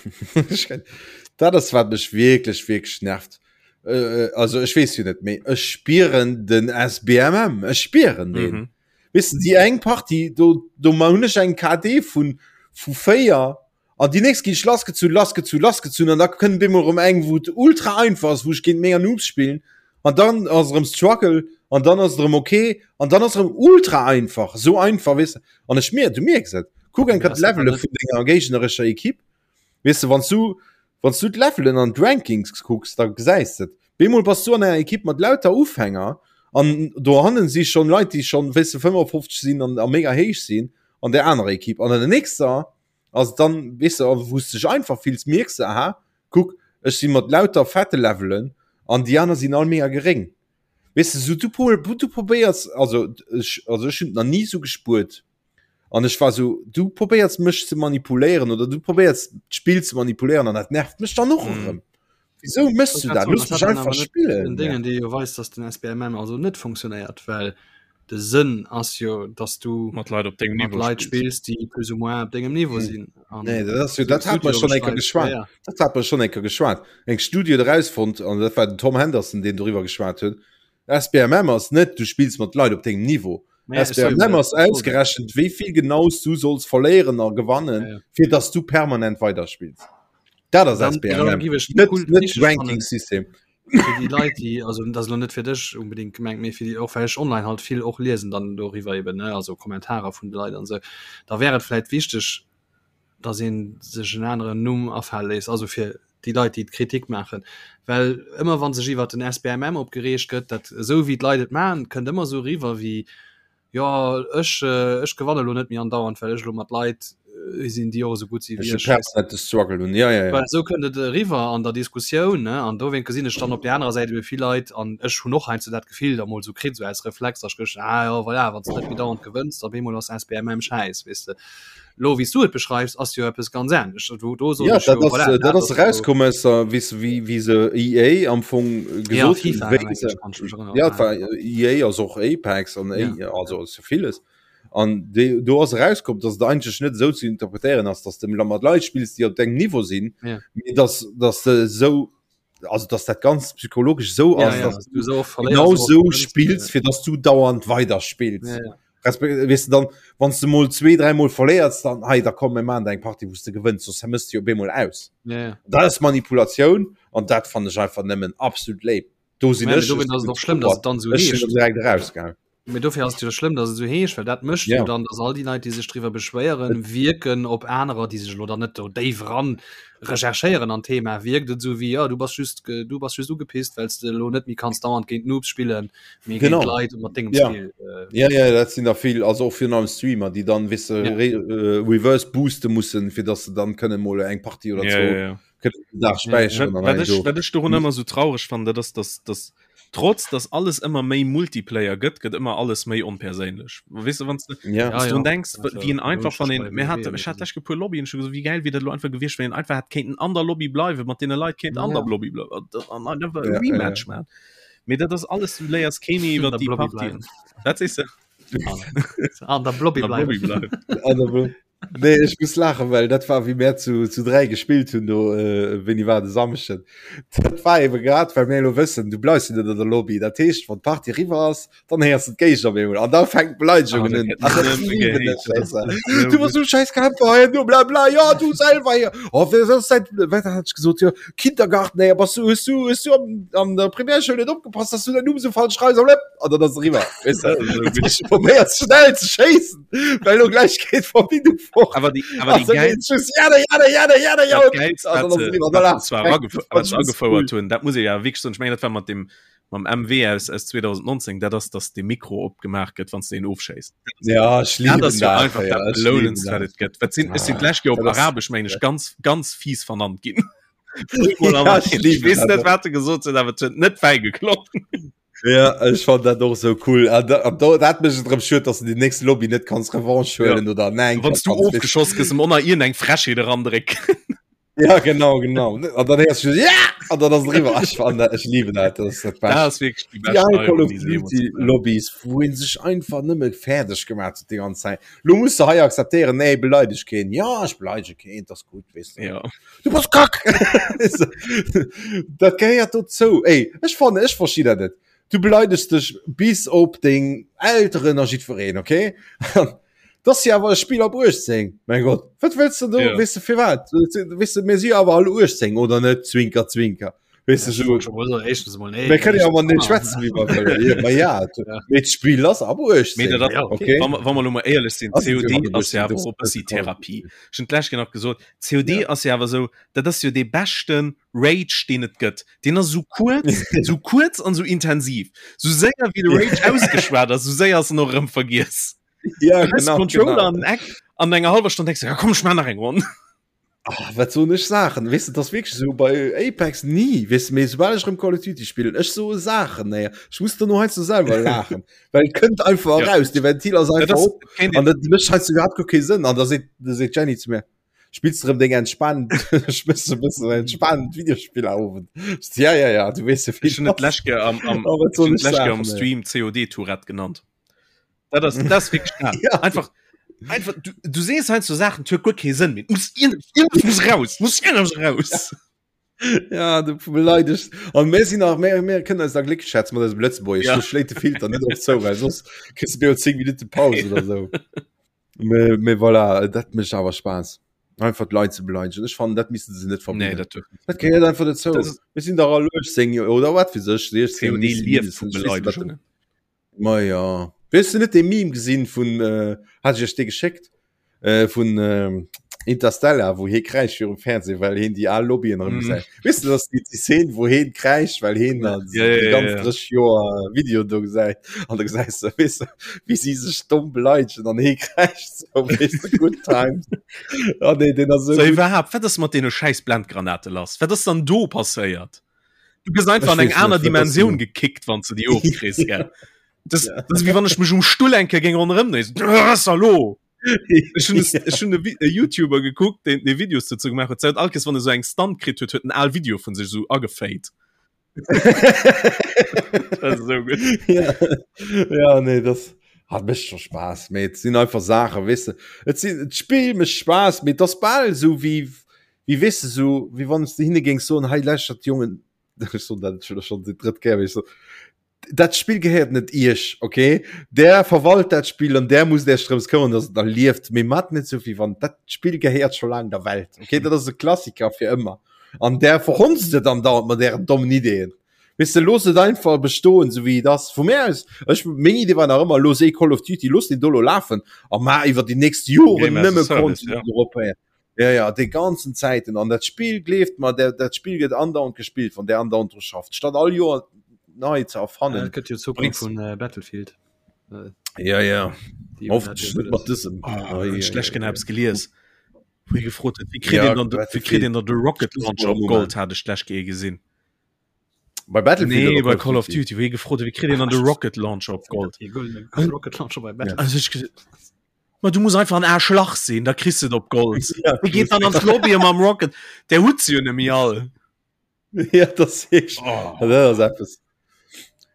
dat ass, wat mech wierklech, wierklech nervt. Äh, also ech weess jo net, mee ech spieren den SBMM, ech spieren deen. mhm. Weess de, déi eng Partie, do, do hunn ech eng KD vun, vu 4 An déi nächst ginn ech lassgezunn, lassgezunn, lassgezunn an da kënnt op eemol erëm eng, wou et ultra einfach ass, wou ech géint mega Noobs spillen an dann ass erëm Struggle an dann ass et erëm ok an dann ass erëm ultra einfach, esou einfach, weess de. An ech mier, du mierks et, kuck eng Kéier d'Levele vun denger géignerescher Ekipp, weess de, wann s du, wann s du d'Levelen an d'Rankings kucks, da gesäis de et. Bemol bass du an enger Ekipp mat lauter Ufänger an dohannen si schonn Leit, déi schonn, weess de, 55 sinn an a mega héich sinn an där anerer Ekipp an an der nächster ass dann weess de, wou s dech einfach fills, mierks de, aha, kuck, ech si mat lauter fette Levelen an déi aner sinn all mega geréng. Weess de, sou du du probéiers, also ech, also ech hunn et nach ni sou gespuert an ech war sou, du probéiers mech ze manipuléieren oder du probéiers d'Spill ze manipuléieren an dat nervt mech dann och erëm. Wisou méchs du dat? Looss mech einfach spillen. Den Déngen, dee jo weist, dass den SBMM also net funktionéiert, well de Sënn ass jo, dass du mat Leit op dengem mat Niveau Leit spills. spills, déi plus ou moins op dengem Niveau Hm. sinn. An Nee, dat ass jo, esou dat hat mer Studie schonn eng Kéier beschreift, geschwat. ja, ja. Dat hat mer schonn eng Kéier geschwat. Eng Studie huet erausfonnt, an dat war den Tom Henderson, deen doriwwer geschwat huet, SBMM ass net, du spills mat Leit op dengem Niveau. Naja, ech soe jo, SBMM ass dat soll dat. ausgerechent, wéi vill genau s du solls verléieren a gewannen, Ja, ja. fir dass du permanent weiderspills. Dat ass Dann, dann SBMM, giff ech net, cool net wichteg fannen, Ranking-System. fir déi Leit, déi, also dat ass elo net fir dech unbedingt gemengt, mee fir déi och, well ech online halt vill och liesen dann doriwwer eben, ne, also Kommentarer vun de Leit an esou, da wär et vläit wichteg, dass ee sech en aneren Numm afale léisst, also fir déi Leit, déi d'Kritik maachen, well ëmmer wa sech iwwert den SBMM opgereegt gëtt, dat esou wéi d'Leit et maachen, kënnt ëmmer esou eriwwer wéi, Jo ech ech gewanne lo net méi andauernd, well ech lo mat Leit sinn, déi och esou gutt si wéi ech. Permanente Struggle hunn, ja, ja, ja. Well esou kënnt et eriwwer an der Diskussioun, ne? An dowéint gesinn ech dann op där anerer Säit ebe vill Leit, an ech hunn och heiansdo dat Gefill da mol esou kritt, esou aus Reflex, datt ech geduecht hunn, ah jo voilà, wann s de net méi dauernd gewënns, da op eemol ass SBMM schäiss, weess de. Lo wéi s du et beschreifs, ass jo eppes ganz anescht. Do, do soen Ja, ech dat jo, ass, voilà, dat dat ass ass jo erauskomm aus der, weess de, wéi, wéi se EA am Fong Ja, gesot hunn, FIFA, wéi mengen se, ech, kann ech mech erënneren. ja, et war EA ass och Apex an Ja. A, also ass jo villes. An déi, do ass erauskomm, dass et eigentlech net esou ze interpretéieren ass, dass de mat Leit spills, déi op dengem Niveau sinn, Ja. mee dass, dass de esou, also dass dat ganz psychologesch esou Ja, ass, ja, dass dass du esou och verléiers, genau esou och esou gewënns, spills, ja. fir dass du dauernd weiderspills. Ja, ja. Respekt, weess de dann, wann s de mol zwee, dräimol verléiers, dann hei, da komm mir maachen der eng Partie, wou s de gewënns, soss mëss de jo op eemol aus. Ja, ja. Dat ass Manipulatioun an dat fannen ech einfach nëmmen absolut léif. Do sinn Mä ech, dowéint ass et och schlëmm, dass et dann esou ech sinn heescht. direkt erausgaangen. Mee dofir ass et jo schlëmm, dass et esou heescht, well dat mécht jo Ja. dann, dass all déi Leit, déi sech driwwer beschwéieren, wierken op anerer, déi sech elo dann net do déif eran recherchéieren an d'Thema, wierkt et esou wéi, jo, du bass just, du bass just ugepisst, well s de elo net méi kanns dauernd géint Noobs spillen, Mee Genau. géint Leit mat dengem Ja. Skill. Äh, Ja, ja, dat sinn der vill, also och virun allem Streamer, déi dann, weess de, Ja. re äh, reverse booste mussen, fir dass se dann kënne mol eng Partie oder Ja, zwou ja, ja. kënnen den Dag späicheren Wat, an wat, hei ech, do. wat ech dorun ëmmer sou traureg fannen, dat ass, dass, dass trotz dass alles ëmmer méi Multiplayer gëtt, gëtt ëmmer alles méi onperséinlech. Weess de, wann s de Ja. Ja, wann s du ja. drun denks, Also, wéi een einfach, wann logesch een, bei mir WoW hat, oder ech hat so. lech e puer Lobbyen, ech hu gesot, wéi gäil wier dat elo einfach gewiescht, wann een einfach hätt kéinten an der Lobby bleiwen, mat deene Leit kéint an Ja. der Lobby bleiwen an an einfach e Ja, ja, ja. Rematch man. Mee dat ass alles, du léiers kee méi iwwer An der déi Blobby Partien. bleiwen. Wat sees de? An der Blobby An der bleiwen. Blobby bleiwen. An der Blo. Nee, ech muss laachen, well dat war wéi mär zu, zu 3 gespillt hunn do, äh, wéini war de Samschden. Dat war eben grad, well mir elo wëssen, du bleifs jo net an der Lobby. Dat heescht, wann d'Partie eriwwer ass, dann héiers du d'Géigner op eemol an da fänkt d'Beleidegung un. Ah, dat lieben ech, weess de. Du bass so scheiß Camper hei, du bla bla, ja, du selwer hier. Oh, wer ass dat, wat hat ech gesot, jo, Kindergarten, ey, bass du, hues du, hues du am, an der Primärschoul net opgepasst, dass du dein Numm so falsch schreibs, an dann ass eriwwer, weess de. Probéiert schnell ze schéissen. Well lo gleich geht Verbindung fort. Aber die, aber die geil, ja, ja, ja, ja, ja, agefouert hunn, dat muss ich ja wirklich soen, ich mengen dat war mat dem mam MW aus, aus 2019, dat ass, dass de Mikro opgemaach gëtt, wann s de een ofschéisst. Ja, ech lieben dat ass jo einfach ja, dat Belounendst, wat et gëtt. Wat sinn, ech sinn d'lescht Joer op Arabesch, meng ech, ganz, ganz fies vernannt ginn. Ja, ech lieben weess net, wat se gesot hunn, awer et huet net fäi geklongen. Ja, ech fand dat och sou cool. An da, an da, dat mécht et erëm schued, dass du déi nächst Lobby net kanns Revanche huelen ja. oder nein. Wann du ofgeschoss gëss, em onnner iergend eng Frechheet erandrécken. Ja, genau, genau. An dann héiers du ja! An dann ass et eriwwer. Ech fand dat, ech lieben dat, dat ass dat Bescht. Dat ass wierklech déi bescht Déi al Call of Neuerung, déi se jeemools Duty gemaach hunn. Lobbys, wou een sech einfach nëmme fäerdeg gemaach huet déi ganz Zäit. Lo muss de hei akzeptéieren, nee, beleideg keen. Ja, ech beleidege keen, dat ass gutt, weess de. Ja. Du bass kack! Dat gehéiert dozou. Ey, ech fannen, ech versti dat net. Du beleidegst dech bis op deng Elteren a jiddwereen, okay? Dat ass jo awer e Spill ab 18. Mein Gott, wat wëlls de do? Ja. Weess de firwat? Weess de, mir si jo awer all 18, oder net? Zwinker, zwinker. Weess de, so, Éischtens emol, nee. mir kënnen jo awer net schwätzen, wéi mer wëllen. Ja, ma ja, Ja. mee d'Spill ass ab 18. Mee dat ass, Ja, okay. okay? Wa mer, wa mer elo mol éierlech sinn, Ass et jo COD ab ass jo 18, awer das och e bëssi das kann. Therapie. Ech hunn d'lescht Kéier nach gesot, COD Ja. ass jo awer esou, dat ass jo dee beschte Rage, deen et gëtt. Deen ass esou kuerz, esou kuerz an esou intensiv. Esou séier wéi de Rage ausgeschwat ass, esou séier ass en och erëm vergiess. Ja, Du hues genau, Controller genau. an den Eck, an enger hallwer Stonn denks du, ja komm, ech maach nach eng Ronn. Ah, wat soen ech Saachen? Weess de, dat ass wierklech esou bei Apex ni, weess de, mee soubal ech erëm Call of Duty spillen, ech soe Saachen, nee, ech muss dono heiansdo selwer laachen, well et kënnt einfach Ja. eraus, de Ventil ass Dat einfach ass, op kéint an dat mécht heiansdo iwwerhaapt guer kee Sënn an da seet, da seet d'Jenny zu mir, spills de erëm deng entspaant, spills de e bëssen entspaant Videospillerowend? Ech so, ja, ja, ja, du weess jo, wéi Ech hunn et et ass. d'lescht Kéier am, am, Oh, wat ech hunn soen ech d'lescht Kéier am Saachen, ey. Stream COD-Tourette genannt. Dat ass, dat ass wierklech dat. Ja. Einfach, einfach, du, du sees heiansdo Saachen, et huet guer kee Sënn méi. Et muss iergend, iergendwas muss raus, muss iergendwas raus. Ja, du beleidegst. An mir sinn nach, mir, mir kënnen eis da glécklech schätzen mat eisem Lëtzebuergesch. Ja. Do schléit de Filter net op zou, well soss kriss du jo 10 Minutte Paus oder sou. Mee, mee voilà, dat mécht awer Spaass. Einfach d'Leit ze beleidegen. Ech fannen, dat missten se net Nee, verbieden. dat duerf Dat gehéiert einfach dozou. Das ist- Mir sinn dach all 18 oder wat weess ech, 16, COD lieft vu mindestens. Ech weess net, wat de- Beleidegungen. Ma ja. Hues du net dee Meme gesinn vun, äh, hat ech iech dee geschéckt, äh, vun äh, Interstellar, wou hie kräischt virum Fernseh, well hien déi al Lobbyen erëm Mm. gesäit. Weess du, dass déi, déi Szene, wou hien kräischt, well hien dann Ja, ja, déi ja, ganz ja. 30 Joer Video do gesäit. An da gesäis du, weess du, wéi si sech domm beleidegen an hie kräischt so, weess du, good times. Ah, nee, deen ass So esou gutt. iwwerhaapt, wat ass mat deene schäiss Blendgranate lass? Wat ass dann do passéiert? Du gëss einfach Ech an eng weess net, aner wat ass Dimensioun do? gekickt, wann du déi ofkriss, gell? Das, Ja. das ist wie wann ech mech um Stull enke géing ronderëm dréinen. Was hallo? Ech hunn es- ech hunn e Vi- e YouTuber gekuckt, deen dee Videos dozou gemaach huet. Seit all Kees, wann e sou eng Stunt kritt huet, huet en al Video vun sech sou agefade. Das ist sou gutt. ja. ja nee das hat mécht scho Spaass mee et sinn einfach Saachen weess de et sinn d'Spill mécht Spaass mee et ass bal esou wéi wéi weess de sou wéi wann s de hinne géings soen hei lauschtert Jongen ech soen dat scho schonn déi drëtt Kéier mee ech soen dat Spill gehéiert net iech okay där verwalt dat Spill an där musst iech drëms këmmern dass et nach lieft mee mat net sou wéi wann dat Spill gehéiert scho laang der Welt okay dat ass e Klassiker fir ëmmer an där verhonzt et andauernd mat ären dommen Ideeën Weess de, looss et einfach bestoen, sou wéi et ass. Vu mär aus, ech, meng Idee war nach ëmmer, looss ee Call of Duty, looss deen do elo lafen a maach iwwer déi nächst Joren Game as a nëmme Service, Content ja. drop. Ja, ja, déi ganzen Zäiten. An dat Spill, gleeft mer, dat, dat Spill gëtt andauernd gespillt, wann där andauernd dru schafft, statt all Joer nei ze Ja, erfannen. dat gëtt jo d'Zukunft Bréngs. vun äh, Battlefield. Äh, Ja, ja. déi hunn dat Hoffentlech jo net mat wëlles. dësem. Oh, Ei, ech ei, lech ei, gen ei. eppes gelies, wou hie gefrot huet, wéi kritt Ja, een dann de, wéi kritt Battlefield. een dann de Rocket Launcher op Moment. Gold, hat ech d'lescht Kéier gesinn. Bei Battlefield Nee, oder bei Call of Duty, wou hie gefrot huet, wéi kritt een dann de Rocket Launcher op Gold? Rocket Launcher bei Battlefield. Also ech gesot, Ma du muss einfach en Aarschlach sinn, da kriss du et op Gold. Ja, Wie geet dann an d'Lobby mam Rocket? Der huet se jo nemmi all. Ja, das ich. Oh. Ja, dat ass eppes.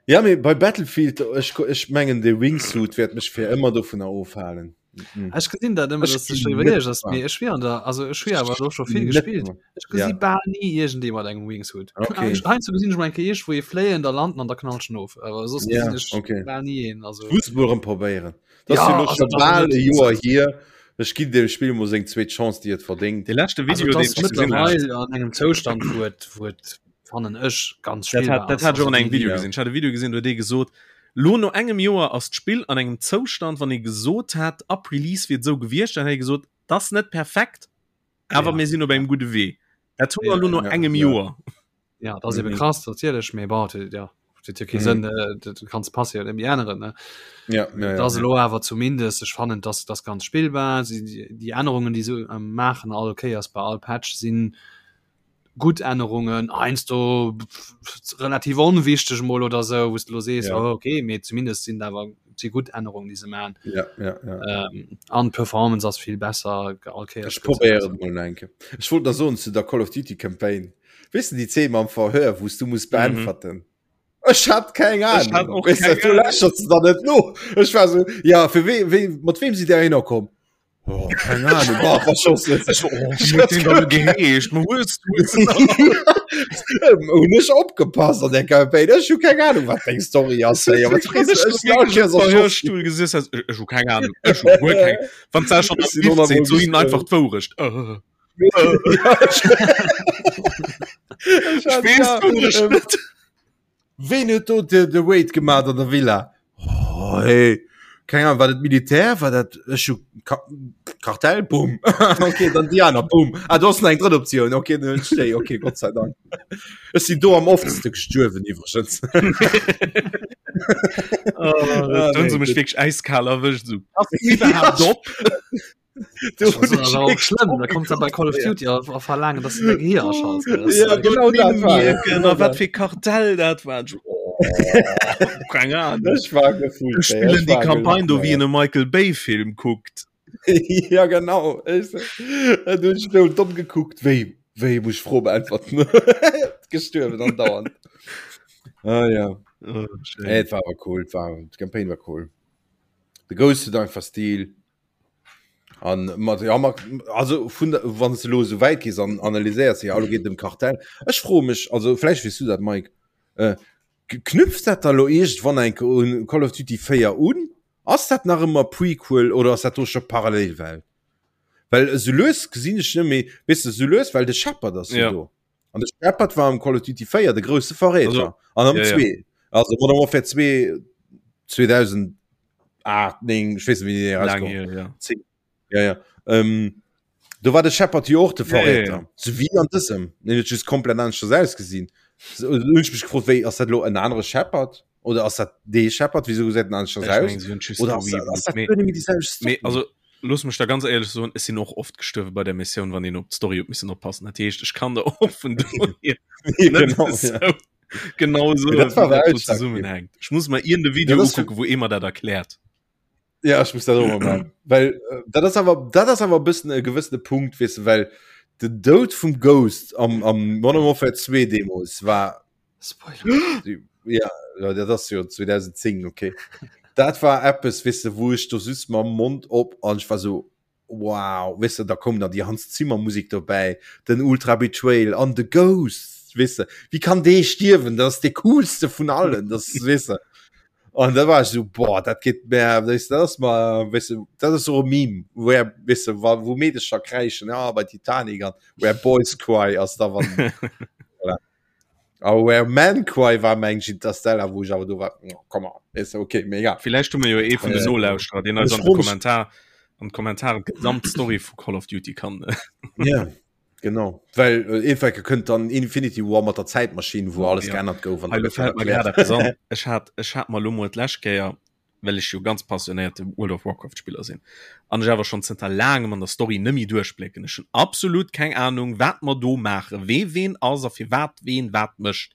Ja, mee bei Battlefield, ech, ech mengen, de Wingsuit wäert mech fir ëmmer dovunner ofhalen. Mhm. Ech gesinn dat ëmmer, dass du schon iwwerleesch ass. Mee ech wier an der also ech wier awer do scho vill gespillt. Ech gesi ja. bal ni iergendee mat engem Wingsuit. Okay. Heiansdo gesinn ech mol eng Kéier iergendwou ee fléien, da landen an da knallt en of. Awer soss ja, gesinn ech okay. bal ni een. Also. Muss mol erëm probéieren. Dat ass ja, also, schon bal e Joer hier. Ech ginn dem Spill mol seng zweet Chance, déi et verdéngt. De leschte Video, also, deen ech gesinn hunn. An engem Zoustand, wou et, wou et fannen ech ganz dat hat, dat hat an engem Video gesinn. Ech hat e Video gesinn, do huet ee gesot, lo no engem Joer ass d'Spill an engem Zoustand, wann ee gesot hätt, ab Release wier et esou gewiescht, dann hätt ee gesot, dat ass net perfekt, awer ja. mir sinn op engem gudde Wee. Dat hu mer lo no ja, engem ja. Joer. Ja, dat ass ebe mhm. krass natierlech, mee bon, ja huet jo kee mhm. Sënn, äh, du kanns Pass jo net méi änneren ne. Ja, ja, ja, das ja. lo awer zumindest ech fannen dass das ganz spillbar si die Ännerungen die se ähm, machen all Kéiers bei all Patch sinn gutt Ännerungen, heiansdo relativ onwichteg mol oder sou, wou s de lo sees, ja. oh, okay, mee zumindest sinn awer si gutt Ännerungen, déi se man. Ja, ja, ja. Ähm, an d'Performance ass vill besser all Kéiers. Ech probéieren et mol eng Kéier. Ech wollt nach soen zu der Call of Duty Campaign. Weess de déi Zeen mam Verhör, wou s du muss beäntwerten? Mhm. Ech hat keng Ahnung. Ech hat och keng Ahnung. Du lächerts da net no. Ech war so, ja, fir wee, wee, mat wem sidd Där hinner komm? Oh, keine Ahnung. Boah, verschossen. Geheescht Hun ech opgepasst an der Campaign. Ech hu keng Ahnung, wat deng Story ass. Hey, aber Stuhl gesessen hast. Ech hu keng Ahnung. Ech hu guer keng. Wann s schon am so hin einfach d'Wourecht. Äh. Ween huet do de, de Raid gemaat an der Villa? Oh, hey. Keng Ahnung, war dat Militär? War dat ech hu Ka Kartell? Boom. okay, dann déi aner. Boom. Ah, do ass nach eng drëtt Optioun. Okay, dann hunn ech déi. Okay, Gott sei Dank. Ech sinn do am oftste gestuerwen iwwregens. Oh, ah, nee, se mech wierklech äiskal erwëscht. So. Ass iwwerhaapt op? Schlimm da kommt bei Call of Duty a verlaangen dass du dein Gehir aschalts ja, genau dat war genau wat fir Kartell dat war oh, keine Ahnung. Ich war gefühlt, spielen die Kampagne do wie in e Michael Bay Film guckt ja genau ich, äh, du ich domm gekuckt wéi wéi muss ich froh beantworten gestuerwen an dauernd ah, ja oh, hey, war aber cool war die Campaign war cool de Ghost huet einfach Stil An mat ja mat also vun der wann s de lo esou wäit gees an analyséiers jo elo geet et ëm Kartell. Ech froe mech also vläicht weess du dat Mike, äh, knüpft dat da lo iergendwann eng Kéier un Call of Duty 4 un? Ass dat nach ëmmer Prequel oder ass dat do scho Parallelwelt? Well esou lues gesinn ech net méi, weess de, esou lues, well de Shepard ass jo Ja. do. An de Shepard war am Call of Duty 4 de grousse Verräter. Also, an am ja, ja. 2. Also Modern Warfare 2 2008, 9, ich weiß nicht, wie die Lang rauskomm. hier, ja. 10. Ja, ja. Ähm, do war de Shepard jo och de Ja, ja, Verräter. ja. So wie an dësem. Den huet just komplett aneschters ausgesinn. So, hunn ech mech gefrot, wéi ass dat lo en anere Shepard? Oder ass dat dee Shepard? Wieso gesäit en aneschters Ech aus? mengen, sie hunn just Oder ass dat, ass dat gereboot. Mee, guer net méi déi selwecht Story? mee also looss mech da ganz éierlech soen, ech sinn och oft gestuerwe bei der Missioun, wann een op d'Story huet missen oppassen. Dat heescht, ech kann der och vun dohier net Genau, ja. esou genau Mee soen, dat war wéi awer dat do ausschlaggebend. zesummenhänkt. Ech muss mer iergend e Ja, Video dat ass ukucken, wou ee mer dat erkläert. Ja, ech muss dat och mol maachen. Well äh, dat ass awer dat ass awer e bëssen e gewëssene Punkt, weess de, well den Doud vum Ghost am, am Modern Warfare 2 deemools war Spoiler. Ja, ja, dat ass jo 2010, okay. Dat war eppes, weess de, wou ech do just mam Mond op an ech war so wow, weess de, da koum dann déi Hans Zimmer Musik dobäi, den Ultra Betrayal an de Ghost, weess de, wéi kann dee stierwen, dat ass dee coolste vun allen, das weess de. An da war ech so boah, dat geet mär, weess de, dat ass mer, weess de, dat ass och e Meme, where, weess de, wa wou Meedecher kräischen, ja bei Titanic an where boys cry ass da wann voilà. A Where Men Cry war meng ech Interstellar, wou ech awer do war, oh, come on, is okay, mega. Villäicht hu mir jo ee vun den Äh, Nolauschterer, deen eis ech an de froe mech- Kommentar an d'Kommentaren d'gesamt Story vu Call of Duty kann. Ja, genau. Well äh, Eefecke kënnt dann Infinity War mat der Zäitmaschinn, wou alles Ja. geännert gouf an Hei, da lo gëtt dat fält mer erkläert. grad eppes an. Ech hat, ech hat mer lo mol d'lescht Kéier, well ech jo ganz passionéierte World of Warcraft Spiller sinn an ech awer schonn zënter laangem an der Story nëmmi duerchblécken. Ech hunn absolut keng Ahnung wat mer do maachen, wee ween ass a firwat ween wat mécht.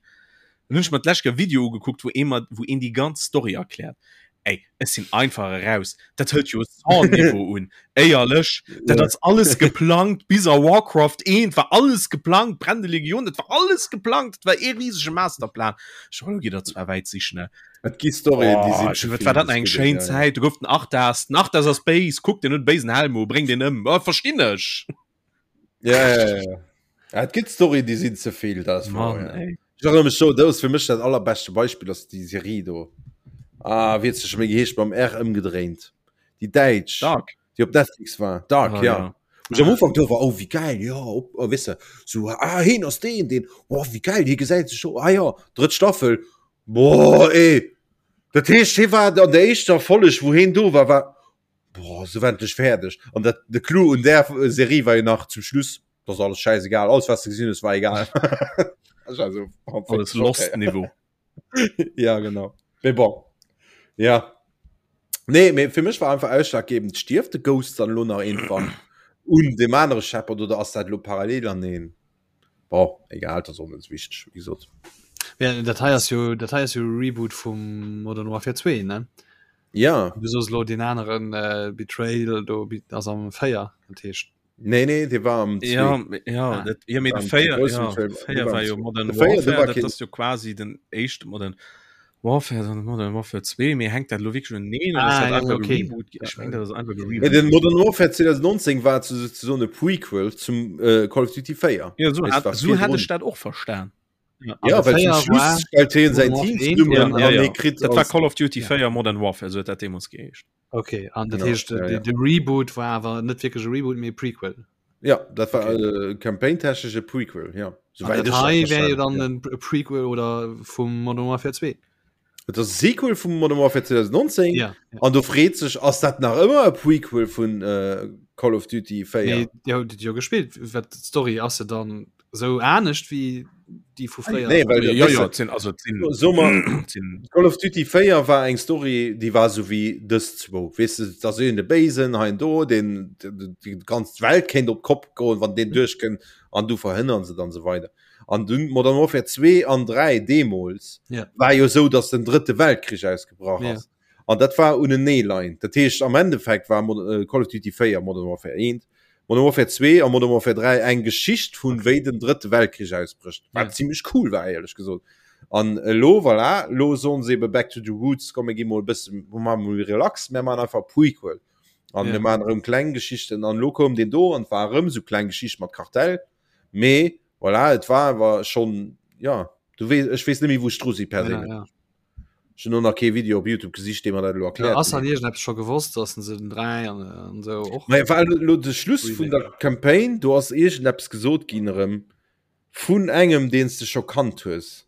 Dann hunn ech mer d'lescht Kéier e Video ugekuckt wou ee mer, wou een déi ganz Story erkläert. Ey, ech sinn einfach eraus. Dat hëlt jo Saw-Niveau un. Éierlech, dat ass alles geplangt, bis a Warcraft 1 war alles geplangt, Brennende Legion, dat war alles geplangt, dat war ee risege Masterplan. Ech elo gitt der zwar wäit sichen, ne? Et gi Storyen, déi sinn ze vill. Wat war dat nach eng schéin Zäit, do gouf den Arthas, den Arthas ass béis, kuck, deen huet e béisen Helm u, bréng deen ëm, oh, verstinn ech. Ja, ja, ja, ja. Ja, et gëtt Storyen, déi sinn ze vill, dat ass wouer, ja. Ech erënnere mech do, dat ass fir mech dat allerbeschte Beispill, ass déi Serie do. Ah, wéi huet se scho méi geheescht, mam R ëmgedréint. Déi däitsch. Dark. Déi op Netflix war. Dark, ah, ja. ja. Wo ich am Ufank do war, oh, wéi geil, ja, op, oh, weess de, so, ah, heen ass deen, deen, oh, wéi geil, hie gesäit sech scho, ah ja, drëtt Staffel, boah, ey. Dat heescht, hie war an der éischter Folleg, wou heen do war, war, Boah, se war endlech fäerdeg. An dat, de Clou un där Serie war jo nach zum Schluss, dat ass alles schäisegal, alles wat s de gesinn hues war egal. Ech war so, oh, Alles Lost Niveau. Ja, genau. Mee bon. Ja. Nee, mee fir mech war einfach ausschlaggebend, stierft de Ghost dann elo nach irgendwann un deem anere Shepard oder ass dat elo parallel aneen? Bon, egal, dat ass och net esou wichteg, wéi gesot. Ja, dat hei ass jo, dat hei ass jo Reboot vum Modern Warfare 2, ne? Ja. Du soos elo deen aneren äh, Betrayal do ass am 4, dat heescht. Nee, nee, dee war am 2. Ja, ja, ah. dat, ja, mee de 4, ja, 4 war jo Modern Warfare, dat ass jo quasi den éischte Modern Warfare, dann Modern Warfare 2, mee hänkt dat elo wierklech uneneen oder ah, ass dat ja, okay. Reboot? Ech meng, dat ass einfach e Reboot. Den Modern Warfare 2019 war souzesoen e Prequel zum äh, Call of Duty 4. Ja, so hat, so hat ech dat och verstan. Ja, ja well zum Schluss stellt hien säin Team zesummen ja, ja, ja. kritt Dat war Call of Duty 4 ja. Modern Warfare, so huet dat deemools geheescht. Okay, an dat heescht ja, ja. de Reboot war awer net wierklech e Reboot, mee e Prequel. Ja, dat war okay. äh, campaigntechnesch e Prequel, ja. Soweit dat hei wär jo dann ja. e Prequel oder vum Modern Warfare 2. Et ass e Sequel vum Modern Warfare 2019 ja, ja. an do freet sech ass dat nach ëmmer e Prequel vun äh, Call of Duty 4? Nee, Dir hutt et jo gespillt, wat d'Story ass se dann sou anescht wéi déi vu fréier? Nee, well ja, ja, sinn, also, sinn, so mal, sinn. Call of Duty 4 war eng Story, déi war sou wéi dës zwou. Weess de, da sinn de Béisen hei an do, deen déi ganz Welt kéint op d'Kopp goen, wann deen duerchkënnt an du verhënnern se dann sou weider. An dunn Modern Warfare 2 an 3 deemools ja. war jo sou, datt den drëtte Weltkrich ausgebrach ja. ass. An dat war uneneeleiend. Dat heescht am Endeffekt war äh, Call of Duty 4 Modern Warfare 1, Modern Warfare 2 a Modern Warfare 3 eng Geschicht vun okay. wéi den drëtte Weltkrich ausbrécht. Wat ja. ziemlech cool war éierlech gesot. An elo voilà, lo soen se ebe back to the roots, komm mir gi mol e bësse mol relax, mir man einfach Prequel. An ja. mir man erëm kleng Geschichten an lo koum den do an war erëm sou kleng Geschicht mat Kartell. Mee voilà, et war awer schonn, ja, du weess, ech weess net méi wou ech dru si perséinlech. Ja, ja. Ech hunn och nach kee Video op Youtube gesicht, dee mer dat elo erkläert. Ja, ass an iergendeppes scho gewosst, dass se den 3 an, an esou och. Naja, well elo de Schluss vun der Campaign, do ass iergendeppes gesot ginn erëm vun engem, deen s de scho kannt hues.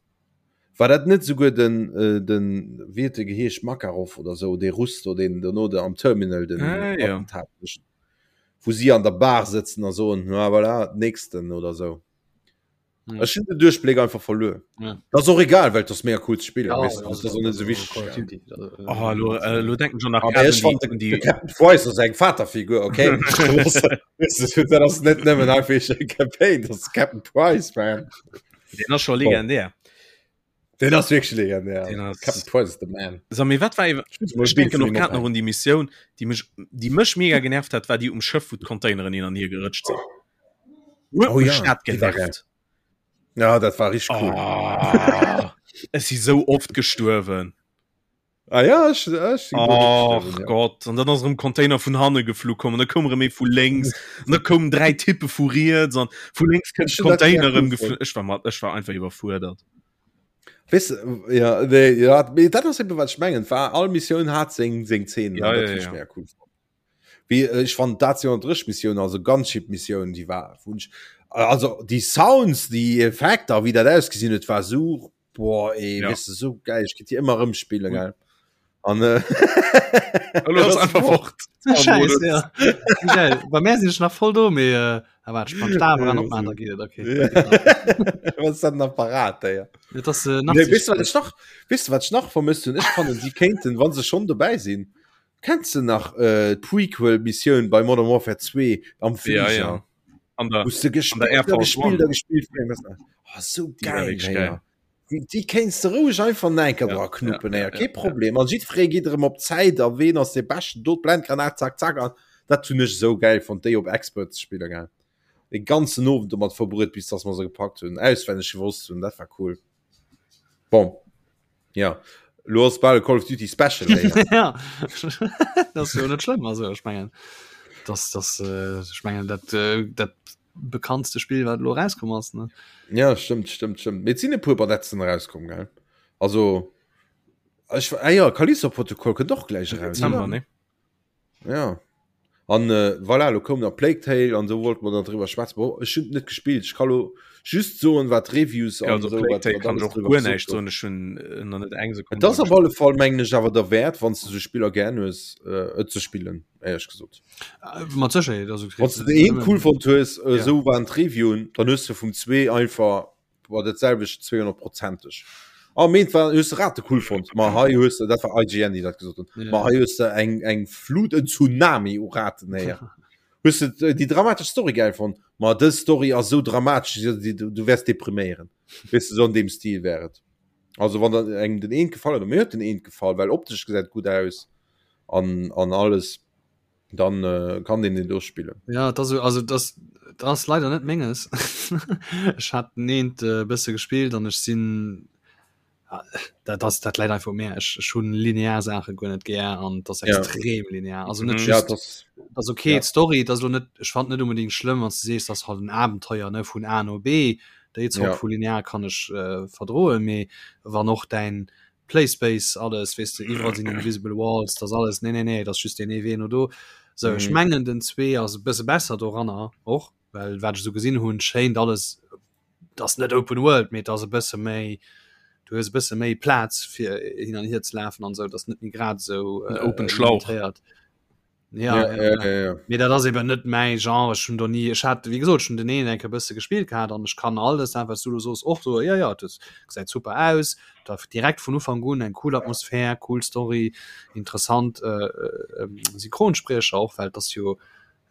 War dat net esouguer den, den, wéi huet e geheescht, Makarov oder esou, dee Russ do, deen dono de am Terminal den Ah, ja. Attentat mécht? Wou si an der Bar sëtzen a soen, na voilà, nächsten oder sou. Ja. Ech hunn den Duerchbléck einfach verluer. Ja. Dat ass och egal, well et ass mega cool ze spillen. Ja, weißt du, das ass och net sou wichteg. Call of Duty, also, äh, Oh, lo, äh, lo denken schon nach Aber ech fand un de, die, de Captain Price ass eng Vaterfigur, okay? Weißt du, dat ass net nëmmen einfach eng Campaign, dat ass Captain Price, man. den ass schon legendär. Den ass wierklech legendär. Den ass- Captain Price is the man. So, mee wat war iwwer- Ech denken och grad nach un déi Missioun, déi mech, déi mech mega genervt hat, war déi um Schëff, wou d'Containeren hin an hier gerëtscht sinn. Huet Oh mech ja, dat déi war genervt. Ja, dat war richtig cool. Oh, ech si sou oft gestuerwen. Ah ja, ech, ech sinn guer net Och gestuerwen, ja. Gott, an dann ass erëm Container vun hanne geflu komm, an da koum erëm ee vu lénks, an da koumen 3 Typpe vu riets, an vu lénks kënnt Ech hunn dat Container mega erëm cool geflu. fonnt. Ech war mat, ech war einfach iwwerfuerdert. Weess, ja, nee, ja, mee dat ass eben wat ech mengen, war all Missioun hat seng seng Szenen, Ja, an dat ja, hunn ech ja. mega cool fonnt. Wéi ech fand dat 203 Missioun, also Gunship Missioun, déi war wou ech, also déi Sounds, déi Effekter, wéi dat ausgesinn huet, war sou Boah, ey, ja. weißt du, so geil, ich könnte die immer rumspielen, geil. An, äh, Hallo, einfach fort. Scheiße, ja. Geil. Bei mir sind ich nach voll do, mee, äh, aber ich kann Stab ran opmachen, da geht es, okay. Was ist das ein Apparat, ey? Ja, das, äh, nee, weißt du, was ich noch, weißt du, was ich noch vermisst und ich fand, sie könnten, wann sie schon dabei sind, kennst du noch äh, Prequel-Mission bei Modern Warfare 2 am Flieger? Ja, ja. An der, Wou du an der gespielt, Air Force gespielt, One. gespielt, gespielt. Oh, so Die war geil, wirklich ey. geil. Déi kéints de roueg einfach nach eng Kéier dra knuppen, ja, ja, kee Problem. An jiddweree geet erëm op d'Zäit a ween ass dee Beschten, do d'Blendgranat, zack, zack. An dat hunn ech esou gäil fonnt, déi op Expert ze spillen, gell. De ganzen Owend domat verbruet, bis dass mer se gepackt hunn, auswenneg gewosst hunn, dat war cool. Bon, ja, lo ass bal e Call of Duty Special. Ja, dat ass jo net schlëmm, also ech mengen, dass, dass, ech mengen dat, dat bekanntste Spill wat lo rauskomm ass ne ja stimmt stimmt stimmt mit sinn e puer Badetzen rauskomm gell also ech ah ja Callisto Protocol kënnt och gläich raus Dezember, ne? ja an äh, voilà lo koum nach Plague Tale an so wollt man dann drüber schwätzen Bon, ech hunn net gespillt ich kann lo just soen wat Reviews Ja, an also so Plague wat, Tale wat kann alles ech och drüber guer gesot näischt gouf. soen ech hunn äh, nach net eng Sekunn Et ass dra op alle Fall mengen ech awer derwäert wann s du sou Spiller gär hues äh, et ze spillen éierlech gesot. Äh, mat Sécherheet also Wann du den een cool fonnt hues, äh, ja. sou waren d'Reviewen, dann hues du vum zwee einfach war dat selwecht 200%eg. Ah, meent war hues du Rate cool fonnt, ma hei hues du dat war IGN déi dat gesot hunn. Ja. Ma hei hues du eng eng Flut en Tsunami u Raten héier. Hues du äh, déi dramatesch Story geil fonnt, ma dës Story ass sou dramatesch, du, du, du wäers depriméieren. Weess du, sou an deem Stil wär et. Also wann der engem den eent gefall huet, mir huet den eent gefall, well optesch gesäit gutt aus an an alles. dann äh, kann den den do spillen. Ja das, also das, das leider net menges. Ech hat neent äh, bësse gespielt an ech sinn ah, dat das dat leider einfach mehr ech ech hunn linear Sache guer net gär an das extrem ja. linear also net mhm. ja, das, das okay ja. Story das lo net ech fand net unbedingt schlimm wann du sees das halt en Abenteuer ne vun A no B déi Zort ja. vu linear kann ech äh, verdroen mee wann och dein Playspace alles weess de iwwerall sinn invisible walls das alles nee nee nee das just den ee Wee no do so ech mhm. mengen den 2 ass e bësse besser doranner och well wat ech so gesinn hunn schéint alles das net open world mee das e bësse méi du hues e bësse méi Plaz fir hin an hier ze lafen an sou das net méi grad sou äh, open Schlauch ja, ja, ja, ja, ja. Mee dat ass eben net mäi Genre ech hunn do nie ech hat wéi gesot schon den een enke bësse gespielt gehat an ech kann alles dat wat du do soos och so ja ja das gesäit super aus da direkt vun Ufank un eng cool Atmosphär cool Story interessant äh, äh, Synchronspriecher och well das jo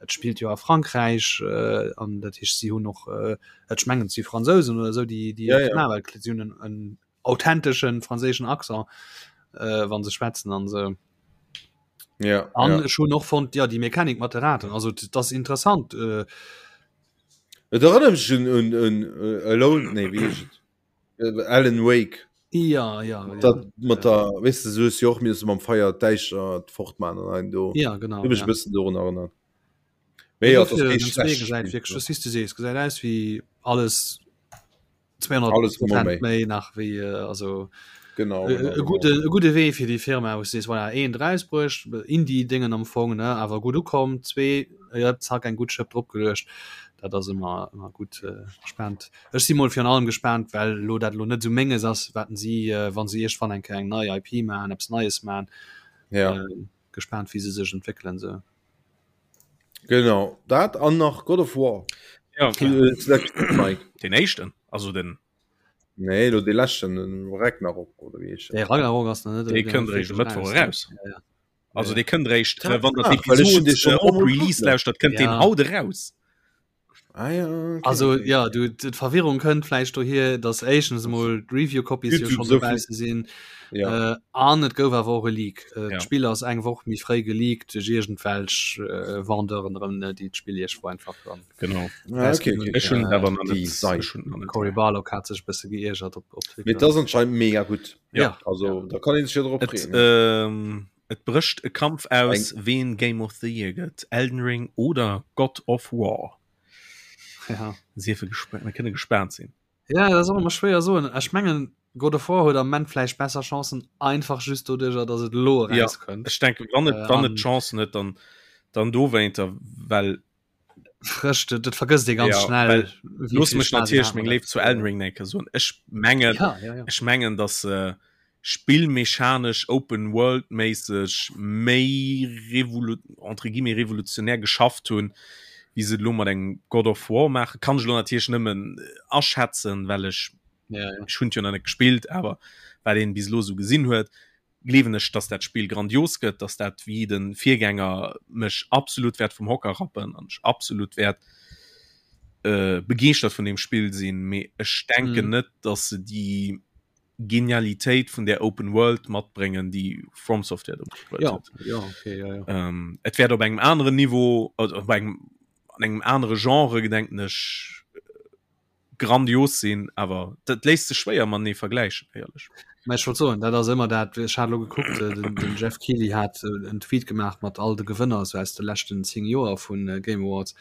et spielt jo a Frankräich äh, an dat heescht si hunn och äh, ech mengen si Fransousen oder sou déi déi ja, ja. ja. si hunn en, en authenteschen franséischen Accent äh, wann se schwätzen an se ja, an ja. schon noch von ja die Mechanik mat Raten also das interessant äh, Et erinnert mich un, un, un, äh, Alone, nee, wie heescht et? Äh, Alan Wake. ja ja, ja. Dat mat der, weißt du, so ist jo och mir mam Feier d'Däischer fortman an ein do. ja genau Huet mech ja. e bëssen dorun erinnert. Mee ja, Dofir, das den Zwee gesäit wirklich das siehst du sees gesäit aus wie alles 200 Alles mol méi. méi nach wéi äh, also Genau, e genau, e genau. gute e gute Wee fir déi Firma wou sees voilà een rausbruecht Indie Dingen am Fong ne awer gutt ukomm zwee ja zack eng gutt Schëpp drop geluecht dat ass ëmmer ëmmer gutt äh, gespannt ech si mol virun allem gespannt well lo dat lo net sou menges ass waten si äh, wann se iergendwann eng Kéier eng nei IP man eppes Neies man Ja. äh, gespannt wéi se sech entwéckelen sou. Genau dat an nach God of War. Ja, ja. Den éischten also den Nee lo de leschten den Ragnarok oder wéi heescht De Ragnarok ass nach net Dee kënnt eréischt e Mëttwoch eraus. Ja, ja. Also dee kënnt eréischt Ah, äh, wann der ah, well ech hunn dee d'Episod schon äh, op emol Release kucken. lauschtert, kënnt deen Ja. haut eraus. Ah, ja, okay, Also okay. ja du d'Verwirrung kënnt vläicht dohier, datt éischtens emol d'Review-Copies jo YouTube schonn so dobausse sinn Ja. äh, an et gouf awer och e Leak. Äh, Ja. D'Spill ass eng Woch méi fréi geleakt duerch iergendwelch äh, Vendeuren erëm, ne, déi d'Spill iergendwou einfach dann Genau. Ah, okay, okay. Ech hunn et awer nach Déi net. Sei. Ech hunn et nach net. Cory Barlog hat sech e bësse geiergert op, op Mee Twitter. dat ass anscheinend mega gutt. Ja. Ja. Also da kann een sech jo drop Et, freeën. ja. ähm, et brécht e Kampf aus, ween Game of the Year gëtt, Elden Ring oder God of War. Ja. Siefe gespa mir kënne gespaant sinn. Ja, dat ass och ëmmer schwéier soen. Ech mengen God of War huet am Moment vläicht besser Chancen, einfach just doduercher, datt et elo Ja, erauskënnt. ech denken, wann et, Äh, wann et an- Chancen huet, dann, dann dowéinter, well Frësch, dat, dat vergësst ee ganz Ja, schnell. well wéi looss vill mech Spaass een natierlech hat meng mat Léift zu Elden Ring eng Kéier soen. Ech mengen, Ja, ja, ja. ech mengen, datt se spillmechanesch open world méisseg méi revolu entre guillemets revolutionär geschafft hunn, wéi se et elo mat engem God of War maachen. Kann ech elo natierlech nëmmen aschätzen, well ech Ja, ja. ech hunn et jo nach net gespillt, awer wat een bis elo esou gesinn huet, gleewen ech, dass dat Spill grandios gëtt, dass dat wéi de Virgänger mech absolut wäert vum Hocker rappen an ech absolut wäert äh, begeeschtert vun deem Spill sinn. Mee ech denken mhm. net, dass se déi. Genialitéit vun der Open World matbréngen, déi From Software do matbruet ja, huet. Ja, okay, ja, ja. Ähm, et wäert op engem aneren Niveau, also op engem, an engem anere Genre, gedenken ech, grandios sinn, awer dat léisst sech schwéier matenee vergläichen, éierlech. Mä ech wollt soen, dat ass ëmmer dat, ech hat elo gekuckt, äh, den, den Jeff Keighley hat äh, en Tweet gemaach mat all de Gewënner sou aus de leschten 10 Joer vun äh, Game Awards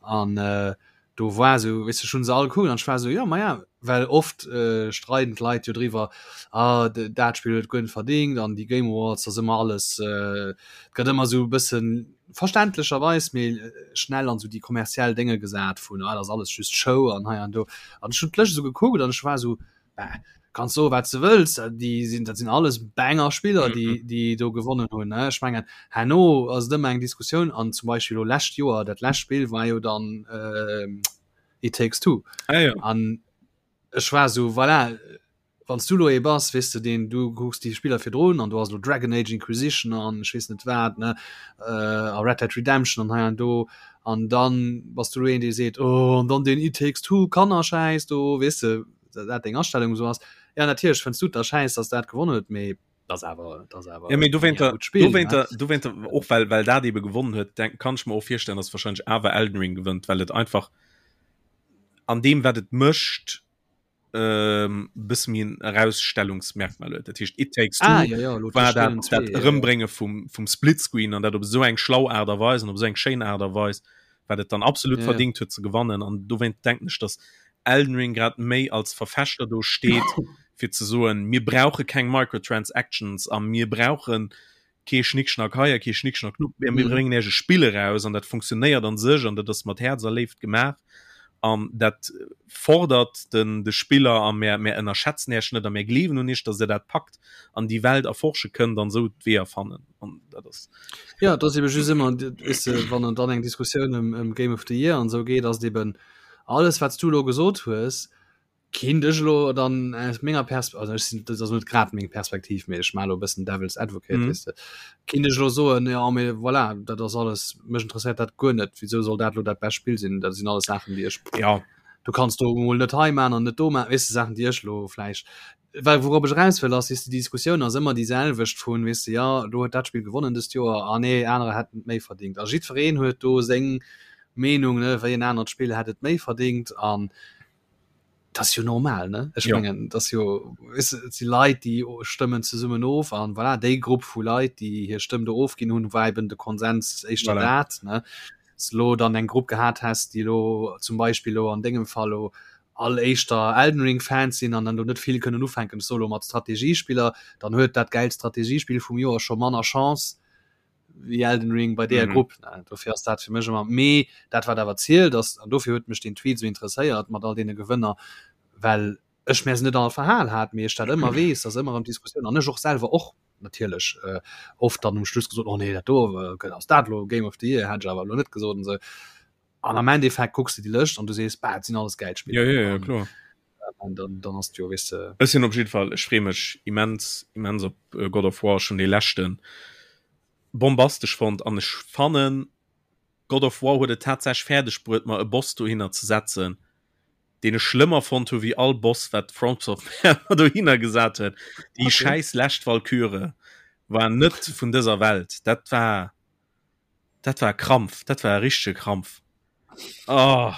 an äh, do war sou, weess de, ech hunn se all gekuckt an ech war sou, jo, maja, well oft äh, streiden d'Leit jo driwwer, ah, dat Spill huet guer net verdingt an déi Game Awards, ass ëmmer alles, äh, et gëtt ëmmer sou e bëssen verständlecherweis, mee schnell an sou déi kommerziell Dénge gesat vun, ah, dat ass alles just Show an hei an do. An ech hunn d'Lëscht esou gekuckt an ech war sou, bah, kanns soe wat s de wëlls, déi sinn, dat sinn alles Banger Spiller, déi, déi do gewonnen hunn, ne. Ech mengen, herno ass et ëmmer eng Diskussioun an zum Beispill elo lescht Joer, dat lescht Spill war jo dann It Takes Two. Ah, ja. An ech war sou, voilà, wann s du elo ee bass, weess de, deen, du kucks déi Spiller virdrun an do ass elo Dragon Age Inquisition an ech weess net wat, ne, a Red Dead Redemption an hei an do an dann bass du elo een, dee seet, oh an dann deen It Takes Two Kannerschäiss do, weess de, dat deng Astellung esou ass. Ja, natierlech fënns du et da schäiss, dass dat gewonnen huet, mee dat ass awer, dat ass awer Ja, mee dowéinter, e gutt Spill, ne? dowéinter, dowéinter, och well, well dat ebe gewonnen huet, denk, kann ech mer och virstellen, dass wahrscheinlech awer Elden Ring gewënnt, well et einfach an deem, wat et mécht, ähm, bësse méi en Erausstellungsmerkmal huet. Dat heescht, It Takes Two ah, ja, ja, lo war dat, Spielen dat zwee, ja, ja. Erëmbrénge vum, vum Splitscreen an dat op esou eng schlau Aart a Weis an op esou eng schéin Aart a Weis, wat et dann absolut Ja, ja. verdingt huet ze gewannen. An dowéint denken ech, dass Elden Ring grad méi als Verfechter do steet, fir ze soen, mir brauche keng Microtransactions a mir brauche kee Schnickschnack hei a kee Schnickschnack do, mir Mhm. bréngen Iech e Spill eraus an dat funktionéiert an sech an dat ass mat Häerz a Léift gemaach an dat fordert den de Spiller a mär mär ënnerschätzen Iech net a mär gleewen un Iech, datt Der dat packt an déi Welt erforsche kënnt an esou d'Weeër fannen an dat ass. Ja, et ass ebe just ëmmer, weess de, wann dann eng Diskussioun ëm ëm Game of the Year an esou geet, ass et eben, alles wat s du elo gesot hues, kinnt ech elo dann aus menger Pers also ech sinn, dat ass net grad meng Perspektiv, mee ech maache elo e bëssen Devil's Advocate, Mhm. weess de, kinnt ech elo soen, jo mee voilà, dat ass alles, mech interesséiert dat guer net, wisou soll dat elo dat bescht Spill sinn? Dat sinn alles Saachen, déi ech, Ja. du kanns do emol net hei maachen an net do maachen, weess de, Saachen, déi ech elo vläicht Well wourop ech eraus wëll ass, weess de, déi Diskussioun ass ëmmer déi selwecht vun, weess de, jo do huet dat Spill gewonnen dëst Joer, ah nee, anerer hätten et méi verdingt. A jiddwereen huet do seng Meenung, ne, wéi en anert Spill hätt et méi verdingt an dat ass jo normal, ne? Ech Jo. mengen, dat ass jo, weess de, et si Leit, déi stëmmen zesummen of an voilà, déi Grupp vu Leit, déi hir Stëmm do ofginn hunn, war eben de Konsens éischter Voilà. dat, ne? S de lo dann eng Grupp gehat häss, déi elo zum Beispill elo an dengem Fall elo all éischter Elden Ring Fans sinn an dann do net vill kënnen ufänken, ech soe lo mat Strategiespiller, dann huet dat gäilt Strategiespill vum Joer scho manner Chance wéi Elden Ring bei deeër Mhm. Grupp. Dofir ass dat fir mech ëmmer, mee dat wat awer zielt ass, an dofir huet mech deen Tweet esou interesséiert mat all deene Gewënner, well ech mär se net all verhal hat, mee ech dat ëmmer weess, dass ëmmer erëm Diskussioun an ech och selwer och natierlech äh, oft dann um Schluss gesot, oh nee, dat do äh, ass dat lo Game of the Year, hätt ech awer lo net gesot an esou. An am Endeffekt kucks de déi Lëscht an du sees, bah, et sinn alles gäil Spiller. Ja, ja, ja, kloer. An dann, dann ass jo, weess de. Ech sinn op jidde Fall, ech freeë mech immens, immens op äh, God of War, ech hunn dee leschten bombastesch fonnt an ech fannen, God of War huet et tatsächlech fäerdeg bruet, mer e Boss dohinner ze setzen, deen ech schlëmmer fonnt hu wéi all Boss, wat FromSoftware dohinner gesat huet. Déi Okay. schäiss lescht Walküre war net vun dëser Welt. Dat war Dat war e Krampf, dat war e richtege Krampf. Oh,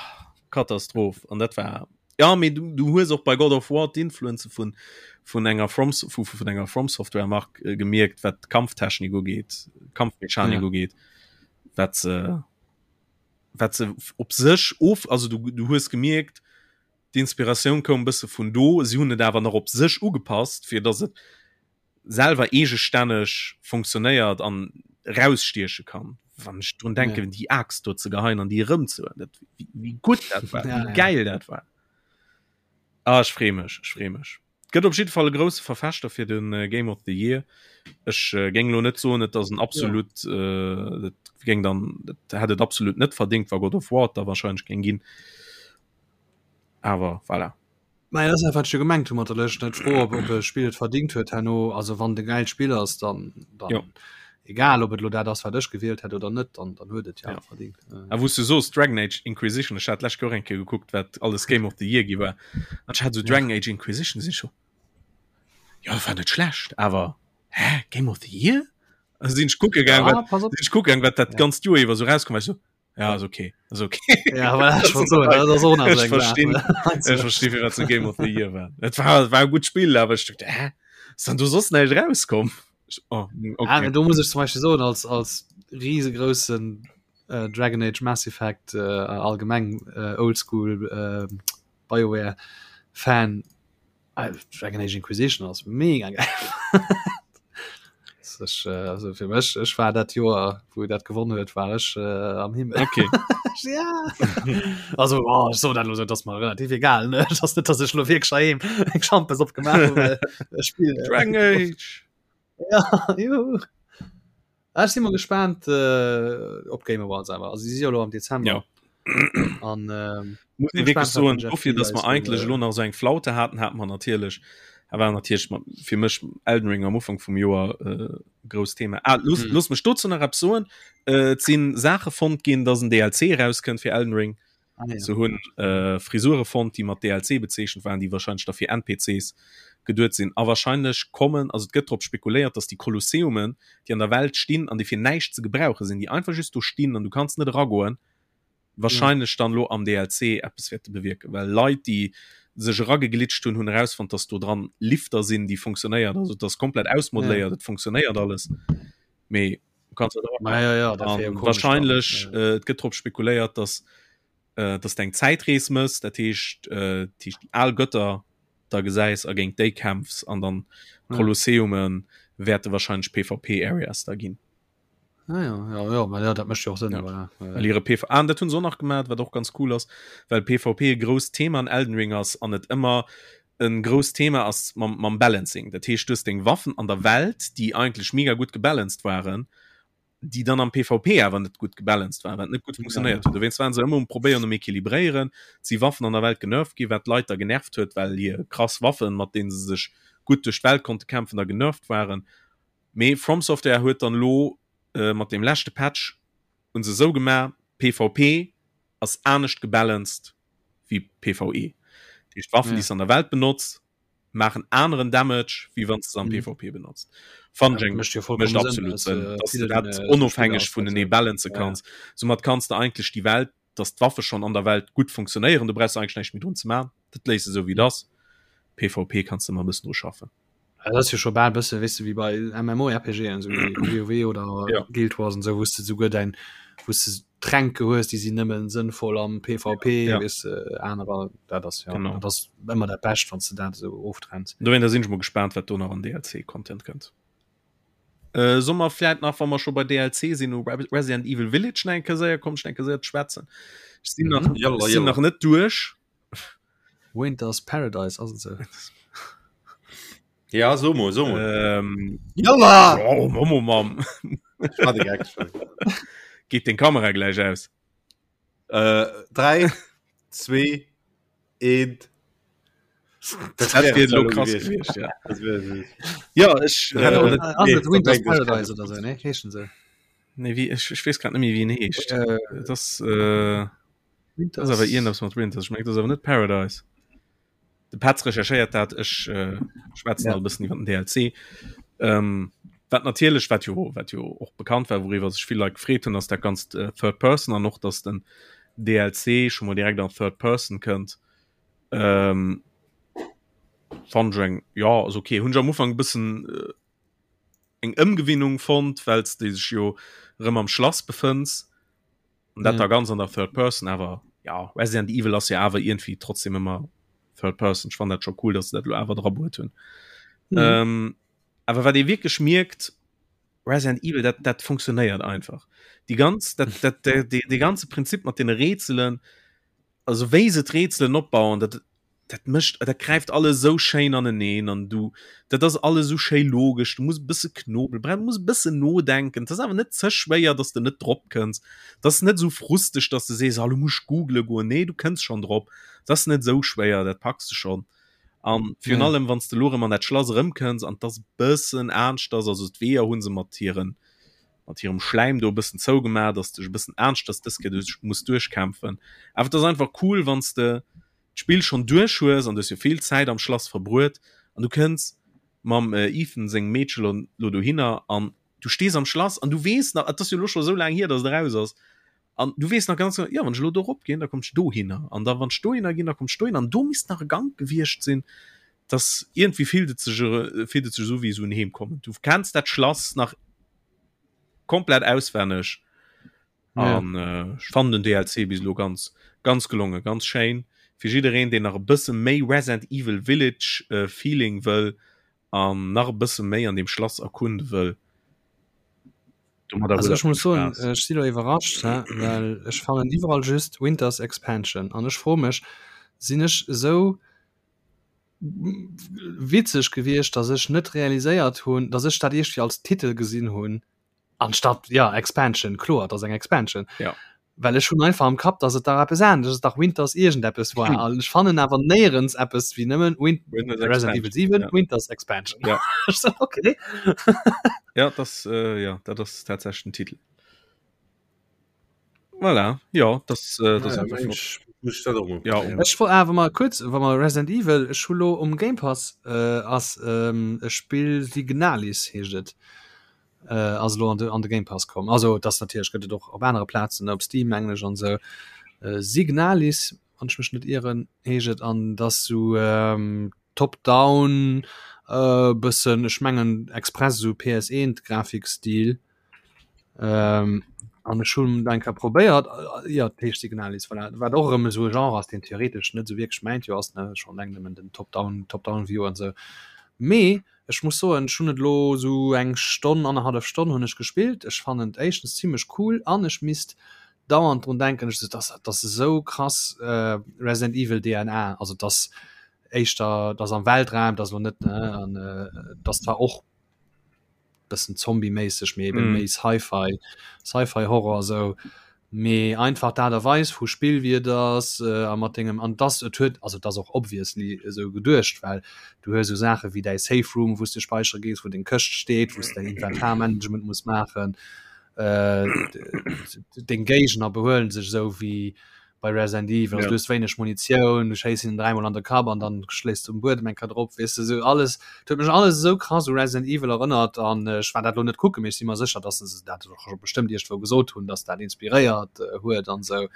Katastroph. An dat war ja mee du, du hues och bei God of War d'Influenze vun vun enger From vu vun enger From Software Mark äh, gemierkt, wat d'Kampftechnik ugeet, Kampfmechanik ja. ugeet, wat se wat se op sech of also du, du hues gemierkt, d'Inspiratioun koum bësse vun do, si hunn et awer nach op sech ugepasst, fir datt et selwer eegestänneg funktionéiert an rausstieche kann. Wann ech drun denken, ja. déi Axt do ze geheien an déi erëm ze dat, wéi, wéi gutt dat war, ja, wéi geil ja. dat war. Ah, ech freeë mech, ech freeë mech. Gëtt op jidde Fall e grousse Verfechter fir den äh, Game of the Year. Ech äh, géing lo net soen, et ass en absolut ja. äh, dat géing dann dat hätt et absolut net verdingt, wa God of War da wahrscheinlech géing ginn. Awer voilà. Mä dat ass dat, wat ech jo gemengt hu mat der Lëscht, net d'Fro, ob ob e Spill et verdingt huet herno. Also wann et e gäilt Spill ass, dann, dann Jo. egal ob et elo dat ass, wat ech gewielt hätt oder net, dann, dann huet et jo Ja. awer verdingt. A wou s du soos Dragon Age Inquisition, ech hat d'lescht Joer eng Kéier gekuckt, wat alles Game of the Year gi war, an ech hat esou Ja. Dragon Age Inquisition, si ech scho. Jo, dat war net schlecht, awer hä, Game of the Year? Also sinn ech kucke gaang, wat, ah, sinn ech kucke gaang, wat dat ja. ganzt Joer iwwer sou rauskomm war. Ech so, ja, ass okay, ass okay. Ja, aber ich wollt soen, dat ass och nach Ech verstinn, ech verstinn, firwat se Game of the Year war. Et war, war e gutt Spill, awer ech dacht, hä, ass dann do soss näischt rauskomm? Oh, okay. Ah, do muss ech zum Beispiel soen, als, als riesegroßen äh, Dragon Age Mass Effect äh, allgemeng äh, Oldschool äh, BioWare Fan, Ah, Dragon Age Inquisition ass mega geil. Ech, äh, also fir mech ech war dat Joer wou dat gewonnen huet war ech äh, am Himmel okay. ja. also oh, so dat lo das mal relativ egal ne das net dass ech lo wierklech heiheem eng Schampes opgemaach hunn well ech spill äh, Dragon Age ja juhu. Ah, ech si mol gespaant äh, op Game Awards awer. Also si si jo lo am Dezember. Ja. An ähm, Muss bin ee wierklech gespannt, wat soen, den Jeff dofir, Keighley dass mer eis do, eigentlech äh, elo nach esou eng Flaute haten, hate mer natierlech, a war natierlech ma fir mech Elden Ring am Ufank vum Joer äh, grousst Thema. Ah, looss, Hm. looss mech dozou nach eppes soen. Äh, et si Saache fonnt ginn, dass en DLC erauskënnt fir Elden Ring. Ah, ja. Se hunn äh, Frisure fonnt, déi mat DLC bezeechent waren, déi wahrscheinlech da fir NPCs geduet sinn. A wahrscheinlech kommen, also et gëtt drop spekuléiert, dass déi Kolosseumen, déi an der Welt stinn an déi fir näischt ze gebrauche sinn, déi einfach just do stinn an du kanns net eragoen, wahrscheinlech dann elo am DLC eppes wäerte bewierken. Well Leit, déi sech erageglitscht hunn, hunn erausfonnt, dass do dran Lifter sinn, déi funktionéiert. Also et ass komplett ausmodeléiert, et funktionéiert alles. Mee du kanns net eragoen. Ja, ja, ja, dat wär jo An komesch dann. wahrscheinlech, Ja. äh, et gëtt drop spekuléiert, dass äh, dass du eng Zäitrees mëss, dat heescht, äh, dat heescht déi al Götter da gesäis a géint déi kämpfs an dann Ja. Kolosseume wäerte wahrscheinlech PvP-Areas da ginn. Ah, ja, ja, ja, ma ja, dat mécht jo och Sënn, Ja. voilà. Ja, Well hire PV ah, an dat hunn se och nach gemaat, wat och ganz cool ass, well PvP e grousst Thema an Elden Ring ass an et ëmmer e grousst Thema ass mam, mam Balancing. Dat heescht, du hues deng Waffen an der Welt, déi eigentlech mega gutt gebalanced waren, déi dann am PvP awer net gutt gebalanced waren, wat net gutt funktionéiert huet. Dowéinst waren se ëmmer um probéieren um equilibréieren. Et si Waffen an der Welt genervt ginn, wat d'Leit da genervt huet, well hir krass Waffen, mat deene se sech gutt duerch d'Welt konnte kämpfen, da genervt waren. Mee From Software huet dann elo mat deem leschte Patch hunn se esou gemaach, PvP ass anescht gebalanced wéi PvE. Dat heescht d'Waffen, déi s de an der Welt benotz, maachen aneren Damage, wéi wann s de se am PvP benotzt. Fannen ech eng, mécht absolut Sënn, dass de dat onofhängeg vunenee balancen kanns. Soumat kanns de eigentlech déi Welt, dass d'Waffe schonn an der Welt gutt funktionéieren, do brauchs de eigentlech näischt méi drun ze maachen, dat léiss de esou wéi et ass. PvP kanns de ëmmer e bëssen dru schaffen. Ja, dat ass jo scho bal bësse wéis du wéi bei MMORPGen sou wéi WoW oder ja. Guild Wars an sou wous de souguer däin wous de Tränke hues, déi sinn nëmmen sënnvoll am PvP ja. weess de anerer dat ass ja Genau. dat ass ëmmer dat Bescht wann s de dat esou oftrenns. Dowéinter sinn ech mol gespaant wat do nach an DLC Content kënnt. Äh, soll mer vläit nach wa mer scho bei DLC sinn u Resident Evil Village nach eng Kéier séier kommen, eng Kéier séier schwätzen. Ech sinn nach, Mhm. Yalla, ech sinn yalla. nach net duerch. Winter's Paradise ass et sou. Ja, so mol, so mol. Ähm, Jalla! oh, Momo, Mam. War de Gag schon. Geht den Kamera gleich aus. Äh, 3, 2, 1. Das wär lo krass gewiescht, ja. Ja, ech, Ja, äh, aber net, Ass nee, et Winter's dat denkt ech Paradise oder sou, ne? Heeschen se. nee, wie, ech, ech weess grad net méi, wéi en heescht. Äh, Das, äh, Das ass awer iergendepps mat Winters. Ech mengen, dat ass awer net Paradise. De Petz recherchéiert dat, ech äh, schwätzen Ja. all bëssen iwwer den DLC. Ähm, wat natierlech, wat jo, wat jo och bekannt war, wouriwwer sech vill Leit gefreet hunn, ass dat ganzt äh, Third Person an och, dass den DLC scho mol direkt an Third Person kënnt. Ähm, fand ech eng, ja, ass okay. Hunn ech am Ufank e bëssen äh, eng Ëmgewinnung fonnt, well s de sech jo erëm am Schlass befënns. An dat Ja. da ganz an der Third Person, awer ja, Resident Evil ass ja awer irgendwie trotzdem ëmmer Third Person. Ech fannen dat scho cool, dass se dat lo awer dra bruet hunn. Mhm. Ähm, awer wat ee wierklech mierkt, Resident Evil, dat, dat funktionéiert einfach. Déi ganz, dat, dat, de, de, de ganze Prinzip mat den Rätselen, also wéi se d'Rätselen opbauen, dat, dat mécht, dat gräift alles esou schéin aneneen an du, dat ass alles esou schéi logesch, du muss e bësse knobelen, du muss e bëssen nodenken, et ass awer net ze schwéier, dass de net drop kënns, et ass net esou frusteg, dass de sees, ah lo muss ech googele goen, nee du kënns schonn drop, et ass net esou schwéier, dat packs de schonn. An virun Ja. allem wann s de lo erëm an dat Schlass erëmkënns an et ass e bëssen aneschters, also d'Weeër hu se mat hiren, mat hirem Schläim do e bëssen zougemaach, dass de dech e bëssen aneschters dës Kéier duerch muss duerchkämpfen, awer et ass einfach cool wann s de d'Spill schonn duerch hues an du hues jo vill Zäit am Schlass verbruet an du kënns. Mam Ethan sengem Meedche lo lo dohinner an du stees am Schlass an du weess nach, et ass jo lo scho sou laang hier, dass et eraus ass, an du weess nach ganz genau, jo wann ech elo do erop ginn, da kommt ech dohinner an da wann ech dohinner ginn, da kommt ech dohinner an do misst nach e Gank gewiescht sinn, dass iergendwéi fillt et sech fillt et sech esou wéi esou en Heemkommen. Du kenns dat Schlass nach komplett auswenneg an ja. äh, ech fannen den DLC bis elo ganz ganz gelongen, ganz schéin fir jiddereen deen nach e bësse méi Resident Evil Village äh, Feeling wëll an nach e bësse méi an dem Schlass erkunde wëll. Also ech muss soen, ech si lo iwwerrascht, well ech fannen iwwerall just Winters Expansion an ech froe mech, sinn ech esou witzeg gewiescht, datt ech net realiséiert hunn, datt ech dat iergendwéi als Titel gesinn hunn anstatt ja Expansion, kloer, et ass eng Expansion. Ja. Well ech hunn einfach am Kapp, datt et dach eppes anescht ass, dach Winters iergendeppes war. Hm. An ech fannen awer néierens eppes wéi nëmmen Win Winters Resident Evil Expansion, 7 ja. Winters Expansion. Ja. Ech so, okay. Ja, das, äh, ja, dat ass tatsächlich den Titel. Voilà, ja, das, äh, das Ah, einfach flott. Mensch, muss ich dat och mol Ja, probéieren. Ech wor awer mal kurz, wa mer Resident Evil, ech hu lo um Game Pass äh, ass ähm, e Spill Signalis heescht et äh, ass lo an de, an de Game Pass komm. Also das natierlech gëtt et och op anere Plazen, op Steam mengen ech an sou. Äh, Signalis, wann ech mech net ieren, heescht et an dass sou ähm, Top-Down äh, bëssen, ech mengen express sou PS1 Grafikstil. Ähm, an ech hunn eng Kéier probéiert, äh, jo, dat heescht Signalis, voilà, wat och erëm esou e Genre ass, deen theoretesch net esou wierklech mäint jo ass, ne, schonn eleng nëmmen den Top-Down, Top-Down-View an esou. Mee ech muss soen, ech hunn et elo esou eng Stonn, annerhallef Stonn hunn ech gespillt. Ech fannen et éischtens zimlech cool an ech misst dauernd drun denken, ech, dass dass esou krass äh, Resident Evil DNA, also dass éischter, dass am Weltraum, dass elo net, ne, an äh, dass zwar och bëssen zombieméisseg, mee eben mm. méi Sci-Fi, Sci-Fi Horror sou. Mee einfach d'Aart a Weis vu Spill wie et ass äh, a mat dengem an das et huet also das och obviously esou geduecht, well du hues sou Saache wéi däi Safe Room, wou s de späichere gees, wou deng Këscht steet, wou s däin Inventarmanagement muss maachen. Äh, deng Géigner behuelen sech esou wéi bei Resident Evil, also ja. du hues wéineg Munitioun, du schéiss hinnen dräimol an de Kapp an dann schléis du um Buedem eng Kéier drop, weess de, sou alles, et huet mech alles esou krass u Resident Evil erënnert an ech war dat lo net kucken, mee ech si mer sécher, dass se dat och scho bestëmmt iergendwou gesot hunn, dass dat inspiréiert huet an esou.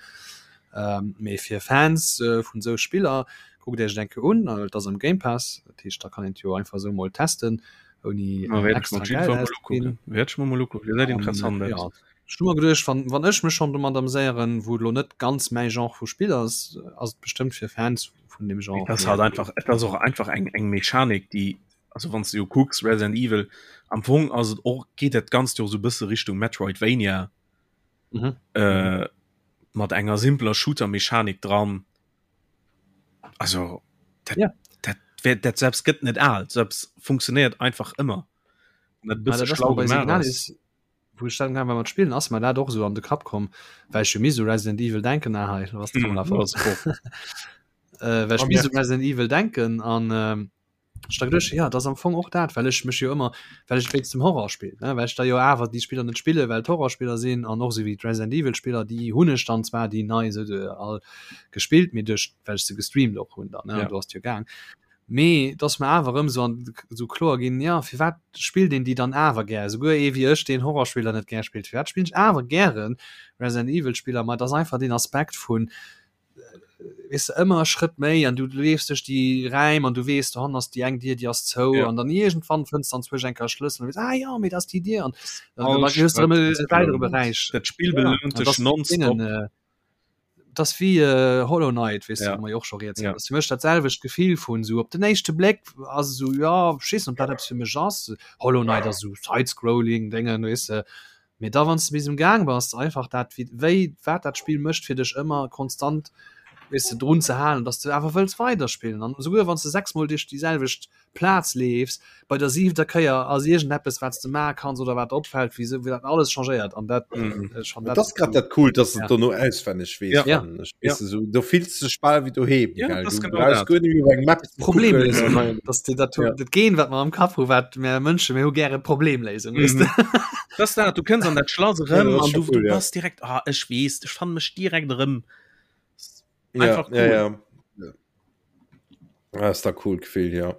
Ähm, mee fir Fans vun esou Spiller, kuckt iech et eng Kéier un, et ass am Game Pass, dat heescht da kann een et jo einfach esou mol testen, ouni extra Geld auszeginn. Wäert ech mer mol ukucken, gesäit interessant aus. Ech hu mer geduecht, wann, wann ech mech schonn domat amséieren, wou et elo net ganz mäi Genre vu Spill ass, ass et bestëmmt fir Fans vun deem Genre. Et ass halt einfach, et ass och einfach eng, eng Mechanik, déi, also wann s de jo kucks, Resident Evil, am Fong ass et och, geet dat Ganzt jo och esou e bësse Richtung Metroidvania, Mhm. äh, mat enger simpeler Shooter-Mechanik dran. Also dat, Ja. dat, wär, dat selbst gëtt net al, selbst funktionéiert einfach ëmmer. An dat e Ah, bësse dat ass schlau mer bei gemaach ass. Signalis, wou ech dann mat spillen ass mer dat och sou an de Kapp komm, well ech jo misst u Resident Evil denken ah, hei was mm, äh, well ech misst u Resident Evil denken an ähm, ech da geduecht, ja dat ass am Fong och dat, well ech mech jo ëmmer well ech wéinst dem Horror spill ne, well ech da jo awer déi Spiller net spille well et Horrorspiller sinn an och sou wéi d'Resident Evil Spiller déi hunn ech dann zwar déi nei sou de all gespillt, mee duerch well ech se gestreamt och hunn dann ne, ja. do ass jo gaang. Mee et ass mer awer erëm esou an esou kloer ginn, jo, firwat spillt een déi dann awer gär? Esouguer ee wéi ech, deen Horrorspiller net gär spillt, firwat spillen ech awer gäre Resident Evil Spiller? Ma et ass einfach deen Aspekt vun, weess de, ëmmer e Schrëtt méi an du leefs duerch déi Räim an du weess, dohannen ass déi eng Dier, déi ass zou Ja. an dann iergendwann fënns de anzwousch eng Kéier e Schlëssel an du weess, ah jo, mee dat ass déi Dier an dann All hues de erëm Schrëtt e ass weidere belount. Beräich. Dat Spill Ja, an belount dat dech ass nonstop. deenen, äh, das wie äh, Hollow Knight weißt ja. du, wo och schon ja. das mech dat selwecht Gefill vun so op den éischte Blick ass so ja schiss und dat fir mech ass Hollow Knight ass so Sidescrolling Dingen weißt du mir da wann du bis im Gang warst einfach dat wie wéi wat dat Spiel mëscht fir dech ëmmer konstant weißt du drun ze halen dass du awer wëlls weiterspillen an souguer wann du sechsmol dich déi selwecht Plaz leefs, bei der siwter Kéier ass iergendeppes wat s de maache kanns oder wat opfält, wéi sou wéi dat alles changéiert an dat mhm. schon dat ass grad dat cool, dass ja. dono auswenneg weess ja. ja. ja. So, du fills dech bal wéi doheem ja, gell? das Du genau brauchst dat. guer net méi op eng Map ze Problemléisung kucken. dass dir dat Ja. dat Gen wat mer am Kapp hu wat mer Mënsche mir hu gäre Problemléisung Mhm. weess de. Das ist dat, du kënns an dat Schlass Ja, erëm dat ass an schon du, cool, du ja. bass direkt ah, ech weess, ech fanne mech direkt erëm. Ja, Einfach ja, cool. ja. Ja. Ah, ist da cool Gefill, ja.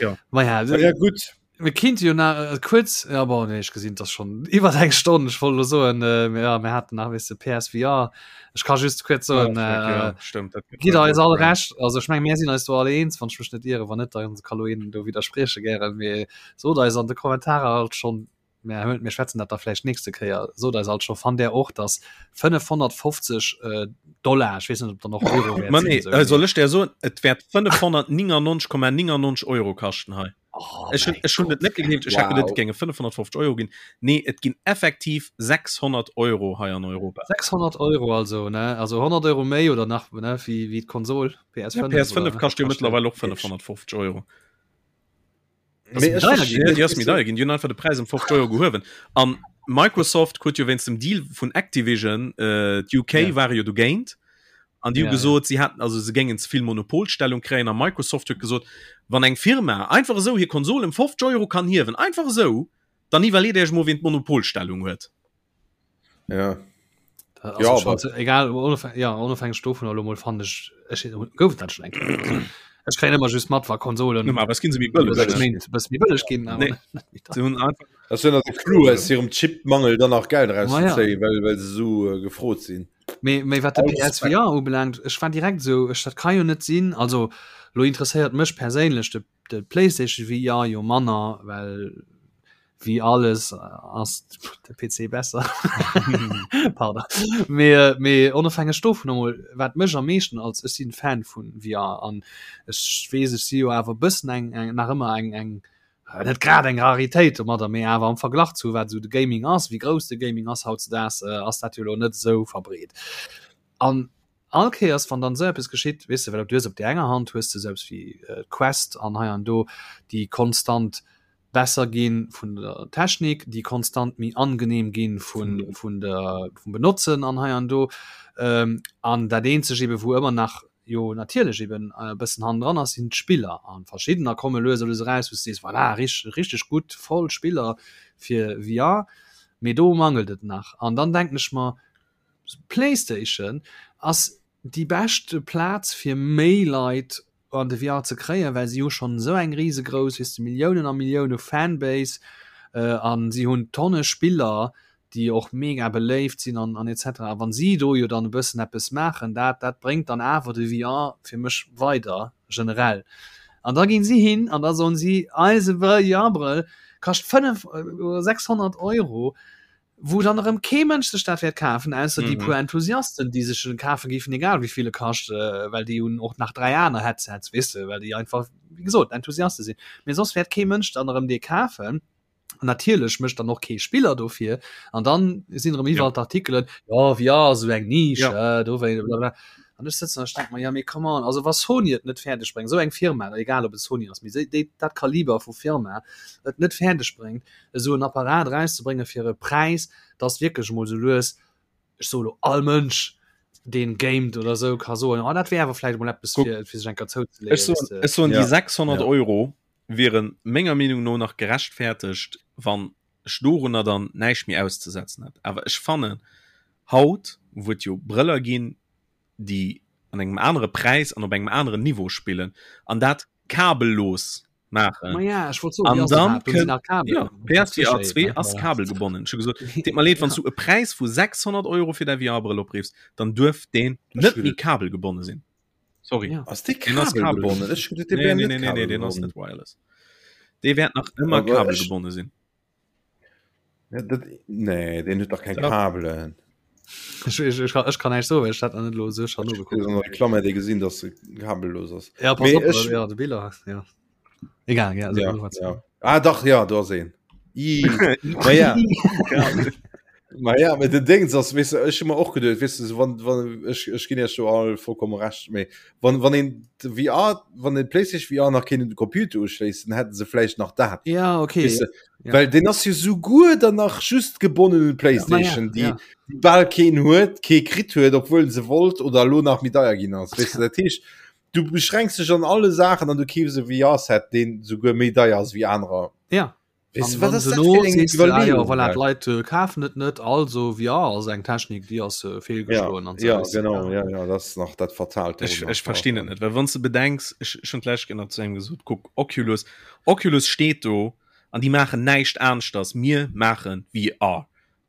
Tja. Ma ja, ja gutt. Mir kinnt jo nach äh, kuerz ja, bon, nee, ech gesinn das schon iwwer eng Stonn ech wollt lo soen äh, ja, mir hatten nach wis de PSVR ech kann just kuerz soen Ja, äh, ja, stimmt, dat gitt eis all recht also ech meng mir sinn eis do alle eens wann ech mech net iere wann net dann kann lo een do widdersprieche gären mee sot eis an de Kommentarer alt schon mir hëlt mir schwätzen dat da vläicht nächste Kéier sot eis alt scho fannt där och dass 550 äh, Dollar ech weess net ob dann och Euro wäert Ma sinn, nee, esou äh, soll ech der soen, et wäert 599,99 Euro kaschten hei. Oh Ech hun, mäi ech hun et Gott. net gegleeft, ech hat geduet, et Wow. géinge 550 Euro ginn. Nee, et ginn effektiv 600 Euro hei an Europa. 600 Euro also ne also 100 Euro méi oder nach ne wéi wéi d'Konsol Ja, PS5 PS5 oder, ne? kascht jo Kascht mëttlerweil och 550 Euro. Ass méi deier ginn? Ja, déi ass méi deier ginn. Déi hunn einfach de Präis ëm 50 Euro gehuewen. An Microsoft huet jo wéinst dem Deal vun Activision, äh, d'UK Ja. ware jo dogéint. An déi hu Ja, ja. gesot, si hätten, also se géingen ze vill Monopolstellung kréien. A Microsoft huet gesot, wann eng Firma einfach esou hir Konsol ëm 50 Euro kann hiewen, einfach esou, dann iwwerleet Iech mol, wien d'Monopolstellung huet. Ja. Also Ja, schon, egal onofhängig, ja, onofhängig dovun elo mol fand ech ech gouf dat schon eng Kéier. Also, ech kréien ëmmer just mat wa Konsolen Normal, was ginn se méi bëlleg, sechs ne? Méint bësse méi bëlleg ginn awer Nee. net méi Se hunn einfach Das ist ja de Clou aus hirem Chipmangel dann nach Geld Ma ja. rauszezéien, well, well se so äh, gefrot sinn. Mee, mee wat de Alles PSVR ubelaangt, ech war direkt esou, ech dat ka jo net sinn. Also lo interesséiert mech perséinlech de, de PlayStation VR jo manner, well wéi alles ass de PC besser. Pardon. Mee, äh, mee onofhängeg dovun emol, wat mech am meeschten als ech sinn Fan vun VR an ech weess, ech si jo awer e bëssen eng, eng nach ëmmer eng, eng äh, net grad eng Raritéit domadder, mee awer am Verglach zu wat esou de Gaming ass, wéi grouss de Gaming ass hautzedaags, äh, ass dat jo elo net esou verbreet. An all Kéiers wann dann esou eppes geschitt, weess de, well du hues op där enger Hand hues de esou eppes wéi äh, d'Quest an hei an do, déi konstant besser ginn vun der Technik, déi konstant méi angenehm ginn vun, vun der, vum Benotzen an hei an do. Ähm, an dat eenzeg eben, wou ëmmer nach jo natierlech eben e bëssen hannendran ass, sinn d'Spiller. An verschiddener komme lues a lues eraus, wou s de sees, voilà, richteg, richteg gutt, voll Spiller fir VR. Mee do mangelt et nach. An dann denken ech mer, PlayStation ass déi beschte Plaz fir méi Leit an de VR ze kréien, well si hu schonn esou eng risegrouss, weess de, Milliounen a Millioune Fanbase an si hunn Tonne Spiller, déi och mega beléift sinn an an et cetera. A wann si do jo dann e bëssen eppes maachen, dat dat bréngt dann awer de VR fir mech weider generell. An da ginn si hin an da soen si, eise VR-Brëll kascht 5 oder 600 Euro, wou dann erëm kee Mënsch sech dat wäert kafen, ausser déi puer Enthusiasten, déi sech en kafe géifen, egal wéi vill e kascht, well déi hunn och nach 3 aner Headsets, weess de, well déi einfach, wéi gesot, Enthusiaste sinn. Mee soss wäert kee Mënsch dann erëm dee kafen. An natierlech mécht dann och kee Spiller dofir. An dann sinn erëm iwwerall d'Artikelen, jo, VR ass esou eng Nisch, dowéi, blablabla. An ech sëtzen an ech denke mer, jo, mee come on, also wa Sony et net fäerdeg bréngt, esou eng Firma, egal ob et Sony ass, mee déi, dat Kaliber vu Firma et net fäerdeg bréngt, esou en Apparat erauszebréngen fir e Präis, dass wierklech emol esou lues, ech soe lo all Mënsch, deen gamet oder esou, ka soen, oh dat wär awer vläicht emol eppes fir, fir sech eng Kéier zouzeleeën. Ech soen, ech soen déi 600 Euro wiere menger Meenung no nach gerechtfertegt, wann ech dorunner dann näischt méi auszesetzen hätt. Awer ech fannen haut, wou et jo Brëller ginn, déi an engem anere Präis an op engem aneren Niveau spillen an dat kabellos maachen. Ma ja, ech wollt soen, An wéi ass dann dat? Do sinn kënnt nach Kabelen. ja, PSVR 2 ass kabelgebonnen. Ech hu gesot, deet mer leed, wann s du e Präis vu 600 Euro fir däi VR-Brëll opriffs, dann duerf deen net méi kabelgebonne sinn. Sorry. Ja. Ass dee Deen ass kabelgebonnen? Ech hu geduet, dee Nee, wär nee, net nee, nee, nee, deen ass kabelgebonnen. net wireless. Dee wäert nach ëmmer Aber ech- kabelgebonne sinn. Ja, dat, nee, den huet dach keng Ja. Kabelen. Ech, ech, ech, kann, ech kann näischt soen, well ech dat nach net elo esou schon nogekuckt An der Reklam hätt ee gesinn, dass se kabellos ass. Ja, pass Mee op, ech- ja, de Biller, ja. Egal, ja, also, Ja, was- ja. Ah, dach, ja, do ass een. Ih, Ma ja. Ma ja, mit den Dings ass, weißt du, ech hu mer och geduet, weißt du, so, wann, wann, ech, ech ginn iech do all vollkommen recht, mee wann, wann een de VR, wann den PlayStation VR nach kéint un de Computer uschléissen, hätten se vläicht nach dat. Ja, okay. Weißt du, Ja. Well den ass jo souguer dann nach just gebonnen un d'PlayStation, Ja, déi ja. déi bal keen huet, kee kritt huet, obwuel se wollt oder elo nach méi deier ginn ass. Weißt du, dat heescht, du beschränks dech an alle Saachen an du keefs e VR-Set, deen souguer méi deier ass wéi anerer. Ja. Weess du, wat ass dat fir eng Iwwerleeung? Ja, voilà, d'Leit äh, kafen et net, also VR ass eng Technik, déi ass äh, feelgeschloen. Ja, ja genau, ja, ja, dat ass nach dat Fatalt. Ech, ech verstinn et net, well wann s de bedenks, ech ech hunn d'lescht Kéier nach zu engem gesot, kuck, Oculus, Oculus steet do an déi maachen näischt aneschters, mir maache VR.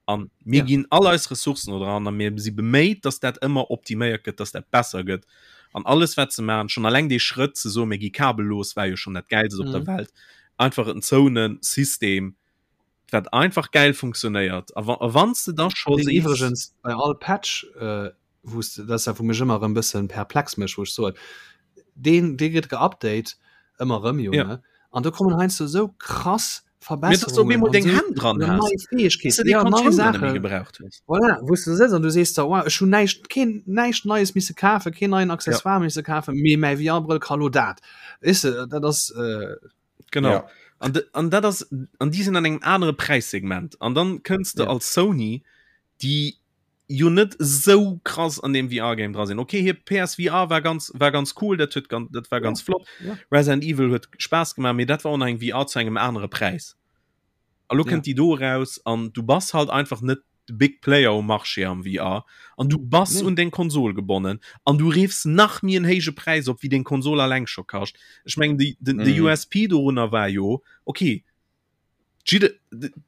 An mir ja. ginn all eis Ressourcen do dran a mir si beméit, dass dat ëmmer optiméiert gëtt, dass dat besser gëtt. An alles wat se maachen, schon alleng dee Schrëtt ze soen, mir gi kabellos, war jo schon dat Gäilst op mhm. der Welt. Einfach en zouene System, wat einfach geil funktionéiert. A wann s de da scho sees. Iwwregens bei all Patch äh, wou s de, dat ass dat wou mech ëmmer erëm bëssen perplex mécht, wou ech soen, deen dee gëtt geupdate ëmmer erëm jo, ne? An do kommen heiansdo esou krass Verbesserungen an esou Hänn dran nei has, Fäegkeeten, ja, nei Saachen, gebraucht hues. Voilà, wou s de sëtz an du sees der, wow, ech hunn näischt, keen näischt Neies misse kafen, keen neien Accessoire ja. misse kafen, mee mäi VR-Brëll ka lo dat. Weess de, dat ass äh, Genau. Ja. An, an dat ass an déi sinn an engem anere Präissegment. An dann kënns de ja. als Sony, déi jo net sou krass an dem VR-Game dra sinn. Okay, hir PSVR war ganz, war ganz cool, dat huet ganz, dat war ganz ja, flott. Ja. Resident Evil huet Spaass gemaach, mee dat war och nach eng VR zu engem anere Präis. A lo ja. kënnt déi do raus an du bass halt einfach net de Big Player um Marché am VR an du bass nee. un deng Konsol gebonnen an du riffs nach méi en héije Präis op, wéi deng Konsol alleng scho kascht. Ech mengen, de, de, mm. de USP dorunner war jo, okay, Jidde,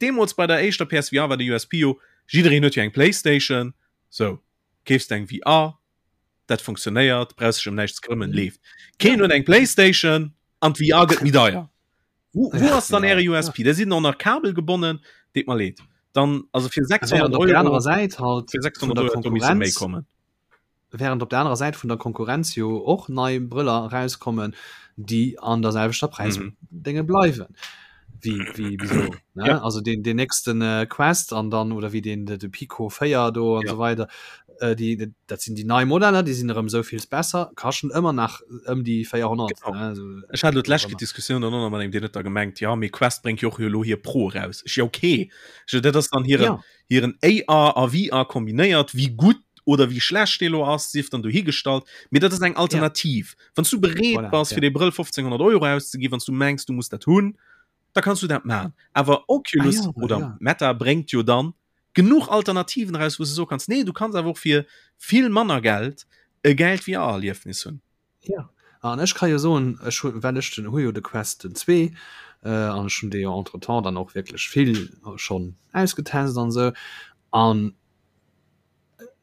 deemools bei der éischter PSVR war de USP jo, jiddereen huet jo eng Playstation, sou, keefs de eng VR, dat funktionéiert, brauchs dech ëm näischt ze këmmen, leeft. Keen huet eng Playstation an d'VR gëtt méi deier. Wou, wou ass dann äre USP? Der sidd och nach kabelgebonnen, deet mer leed. Dann, also fir 600 Euro, der anerer Säit halt fir 600 Euro hätt do misse méi kommen. Während op der anerer Säit vun der Konkurrenz jo och nei Brëller erauskommen, déi an der selwechter Präisdénge mhm. bleiwen. Wie, wie, wieso, ne? Ja. Also den, den nächsten äh, Quest an dann oder wie den de, de Pico 4 do an ja. so weiter. Äh, die, dat sinn die nei Modeller, die sinn erëm souvill besser, kaschen ëmmer nach ëm die 400. Genau. Ne? Also, Ech hat d'lescht Diskussion dann mat engem, deen huet da gemengt, ja, mee Quest bréngt jo och elo hir Pro raus. Ech, ja, okay. Ech, dat ass dann hiren, ja. hiren AR a VR kombinéiert, wéi gutt oder wéi schlecht dee lo ass, sief dann dohigestallt, mee dat ass eng Alternativ. Ja. Wann s du bereet voilà, bass, fir ja. dee Brëll 1500 Euro auszeginn, wann s du mengs, du muss dat hunn, da kanns du dat maachen. Awer Oculus ah, ja, oder ja. Meta bréngt jo dann genuch Alternativen raus, wou s du soe kanns, nee, du kanns awer och fir vill manner Geld e gäilt VR-Erliefnis hunn. Ja an ech ka jo soen, ech hu well ech den hu jo de Quest den 2 an ech hunn dee jo entretemps dann och wierklech vill schonn ausgetest an esou an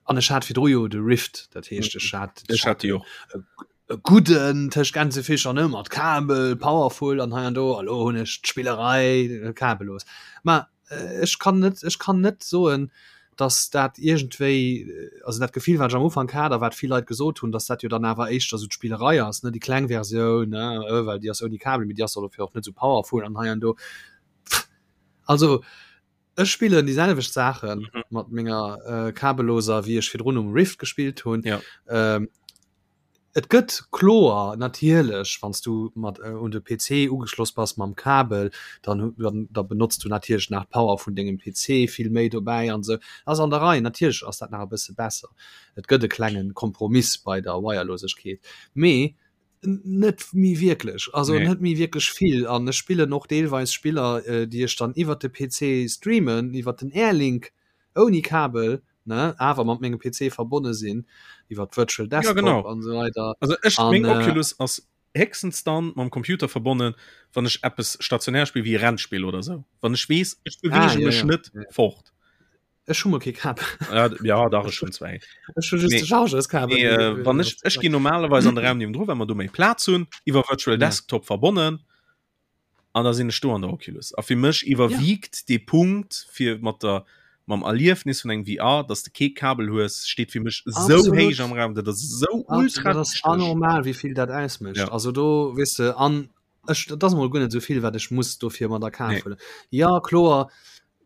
an ech hat virdru jo de Rift, dat heescht ech hat Ech hat déi och. e gudden tëscht Gänsefischer ne mat Kabel, powerful an hei an do, a lo hunn ech d'Spillerei kabellos. Mä ech kann net ech kann net soen, dass dat iergendwéi also dat Gefill wat ech am Ufank hat a wat vill Leit gesot hunn, dass dat jo dann awer éischter esou d'Spillerei ass ne déi kleng Versioun ne well déi ass ouni Kabel, mee déi ass dofir och net esou powerful an hei an do. Also ech spillen déi selwecht Saache mat menger kabelloser wéi ech virdrun um Rift gespillt hunn. Ja. Et gëtt kloer natierlech, wann s du mat un de PC ugeschloss bass mam Kabel, dann dann da benotz du natierlech nach d'Power vun dengem PC vill méi dobäi an esou. Ass an der Rei, natierlech ass dat nach e bësse besser. Et gëtt e klenge Kompromiss bei der Wirelosegkeet, mee net méi wierklech, also Nee. net méi wierklech vill. An ech spillen och deelweis Spiller, déi ech dann iwwert de PC streamen, iwwert den Airlink ouni Kabel, ne awer mat mengem PC verbonne sinn iwwer Virtual Desktop ja, genau. an so weiter. Also ech an, meng äh, Oculus ass héchstens dann mam Computer verbonnen, wann ech eppes stationär spill wéi Rennspill oder sou. Wann ech weess, ech bewege ah, ja, mech ja. net ja. fort. Ech hu mol kee Kabel. Ja, ja dach ech hunn zwee. Ech hu just de Chargeurs-Kabel. Nee, äh, wann ech, ech ginn normalerweis an de Raum niewendru, well mer do méi Plaz hunn, iwwer Virtual ja. Desktop verbonnen. An da sinn ech do an der Oculus. A fir mech iwwerwiegt ja. dee Punkt fir mat der mam Erliefnis vun engem VR, dass de kee Kabel hues, steet fir mech sou héich am Raum, dat ass sou ultra dat ass anormal wéi vill dat ausmécht. Ja. Also do weess de an ech dat ass mol guer net sou vill wat ech muss dofir mat a Kaf nee. huelen. Ja kloer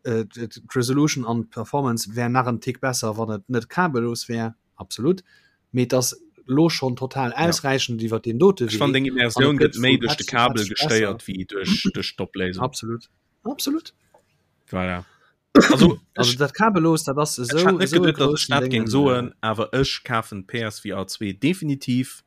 äh, d'Resolution an d'Performance wär nach en Tick besser, wann et net kabellos wär. Absolut. Mee et ass lo schonn total ausräichend iwwer deen dote Wee. Ech fannen deng Immersioun gëtt méi duerch de Kabel gestéiert wéi duerch duerch d'Opléisung. Absolut. Absolut. Voilà. Also, also dat Kabellos, dat ass esou ech hat net geduet, datt ech dat géing soen, awer ech kafen d'PSVR 2 definitiv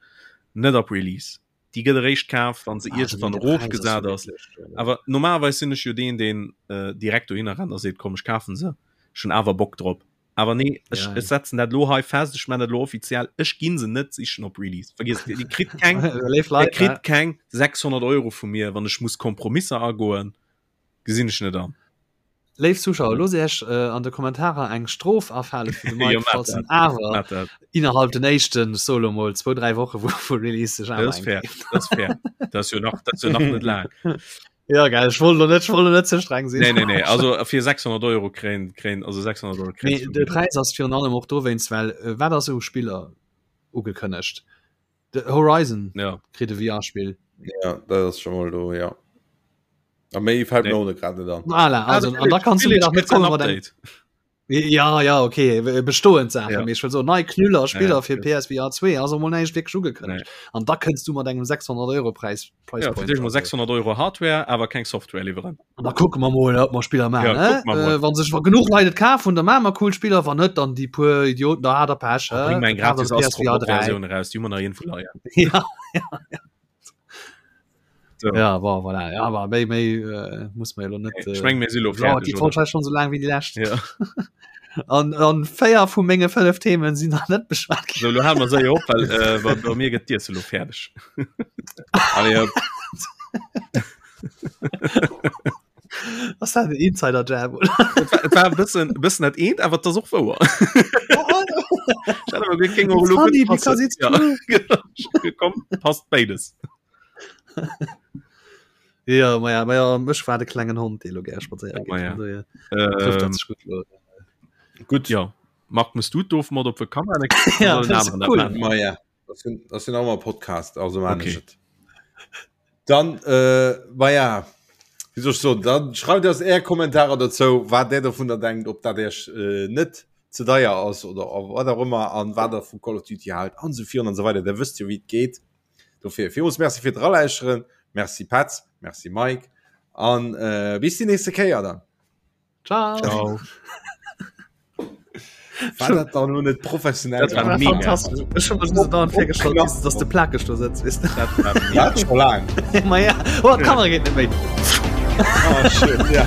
net op Release. Déi gëtt eréischt kaf, wann se ah, iergendwann erofgesat ass. Awer normalerweis sinn ech jo deen, deen äh, direkt dohinner rennt a seet, komm ech kafen se. Ech hunn awer Bock drop. Awer nee, ech, ja, ech setzen dat lo hei fest, ech man dat lo offiziell, ech ginn se net sichen op Release. Vergiss, Dir kritt keng, Dir kritt keng 600 Euro vu mir, wann ech muss Kompromisser agoen, gesinn ech net an. Léif Zuschauer, loosst Iech an de Kommentarer eng Strof afale fir de Mike, falls en awer innerhalb den éischten, ech soe lo mol, zwou, dräi Woche vu vu Release sech awer eng keeft. Dat ass fair, dat ass fair. Dat ass jo nach, dat ass jo nach net laang. Ja, gell, ech wollt lo net, ech wollt lo net ze streng sinn. Nee, nee, nee, also fir 600 Euro kréien, kréien, also 600 Euro kréien. Mee de Präis ass virun allem och dowéinst, well wat ass u Spiller ugekënnegt? De Horizon ja. kritt e VR-Spill. Ja, dat ass schon mal do, ja. A méi fällt nee. mir ohne grad net an. Voilà, also, an da kannst du mir nach net kommen mat engem. Ja, ja, okay, bestoend Sachen. Ja. Ech will so nei Knüller Spiller ja, fir PSVR 2 also mol näischt wierklech ugekënnegt. Nee. An da kënns du mat engem 600 Euro Preis. Price ja, Point. Mal 600 Euro Hardware, awer keng Software liwweren. An da kucke mer mol, ob mer Spiller maachen. Ja, äh, wann sech genuch Leit et kafen, da maache mer cool Spiller, wann net, dann déi puer Idioten, da hat der Pech. Ja, bring eng gratis Versioun raus, déi hu mer nach iergendwou leien. Ja, ja, ja. So. Ja, bon, voilà. Ja, aber méi, méi äh, muss man jo net. Äh, ich meng, mir si lo fertig. Die Folge schon so lang wie die lescht. Ja. An, an véier vu menge fënnef Themen sinn nach net beschwat ginn. So, lo hale mer séier op, well äh, bei, bei mir gëtt d'Iesse lo fäerdeg. Allez, hopp. Ass dat en Insider-Jab, oder? Et war, et war e bëssen, e bëssen dat eent, awer et ass och wouer. Ech hat awer geduecht, géing och It's elo gutt funny passen. because it's Ja, true. genau. Komm, passt béides. Ja, ma ja, ma ja, mech war de klengen Hond, dee lo gär spadséiere Oh, geet. ma ja. Von daher trifft dat Ähm, sech gutt lo. Gutt, ja. Marc, muss du d'Ofmod op de Kamera Ja, das ist cool. Ma ja, das sind, das sind auch mal Podcast, also man Okay. okay. Dann, äh, ma ja, wie soll ich so, dann schreibt uns är Kommentare dazu, wat der davon da denkt, ob dat iech äh, net ze deier ass oder wat auch immer an wat der vu Call of Duty halt an so virun an so weiter. Der wësst jo, wéi et geet. Dofir villmools Merci fir d'Ralauschteren. Merci Petz, Merci Mike an äh, bis déi nächste Kéier dann. Ciao. Ciao. War dat dann lo net professionell? Dat war mega. Fantastisch. Ech hun mech so dauernd virgestallt, dass, dass de plakeg do sëtzt, weess de. Dat war mega. Dat schon lang. Ma ja, oh, d'Kamera geet net méi. Oh, shit, ja.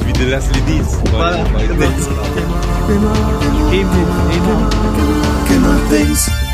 Wie de Leslie Nies. Voilà, genau. Een Move, een Move. Gamer Things.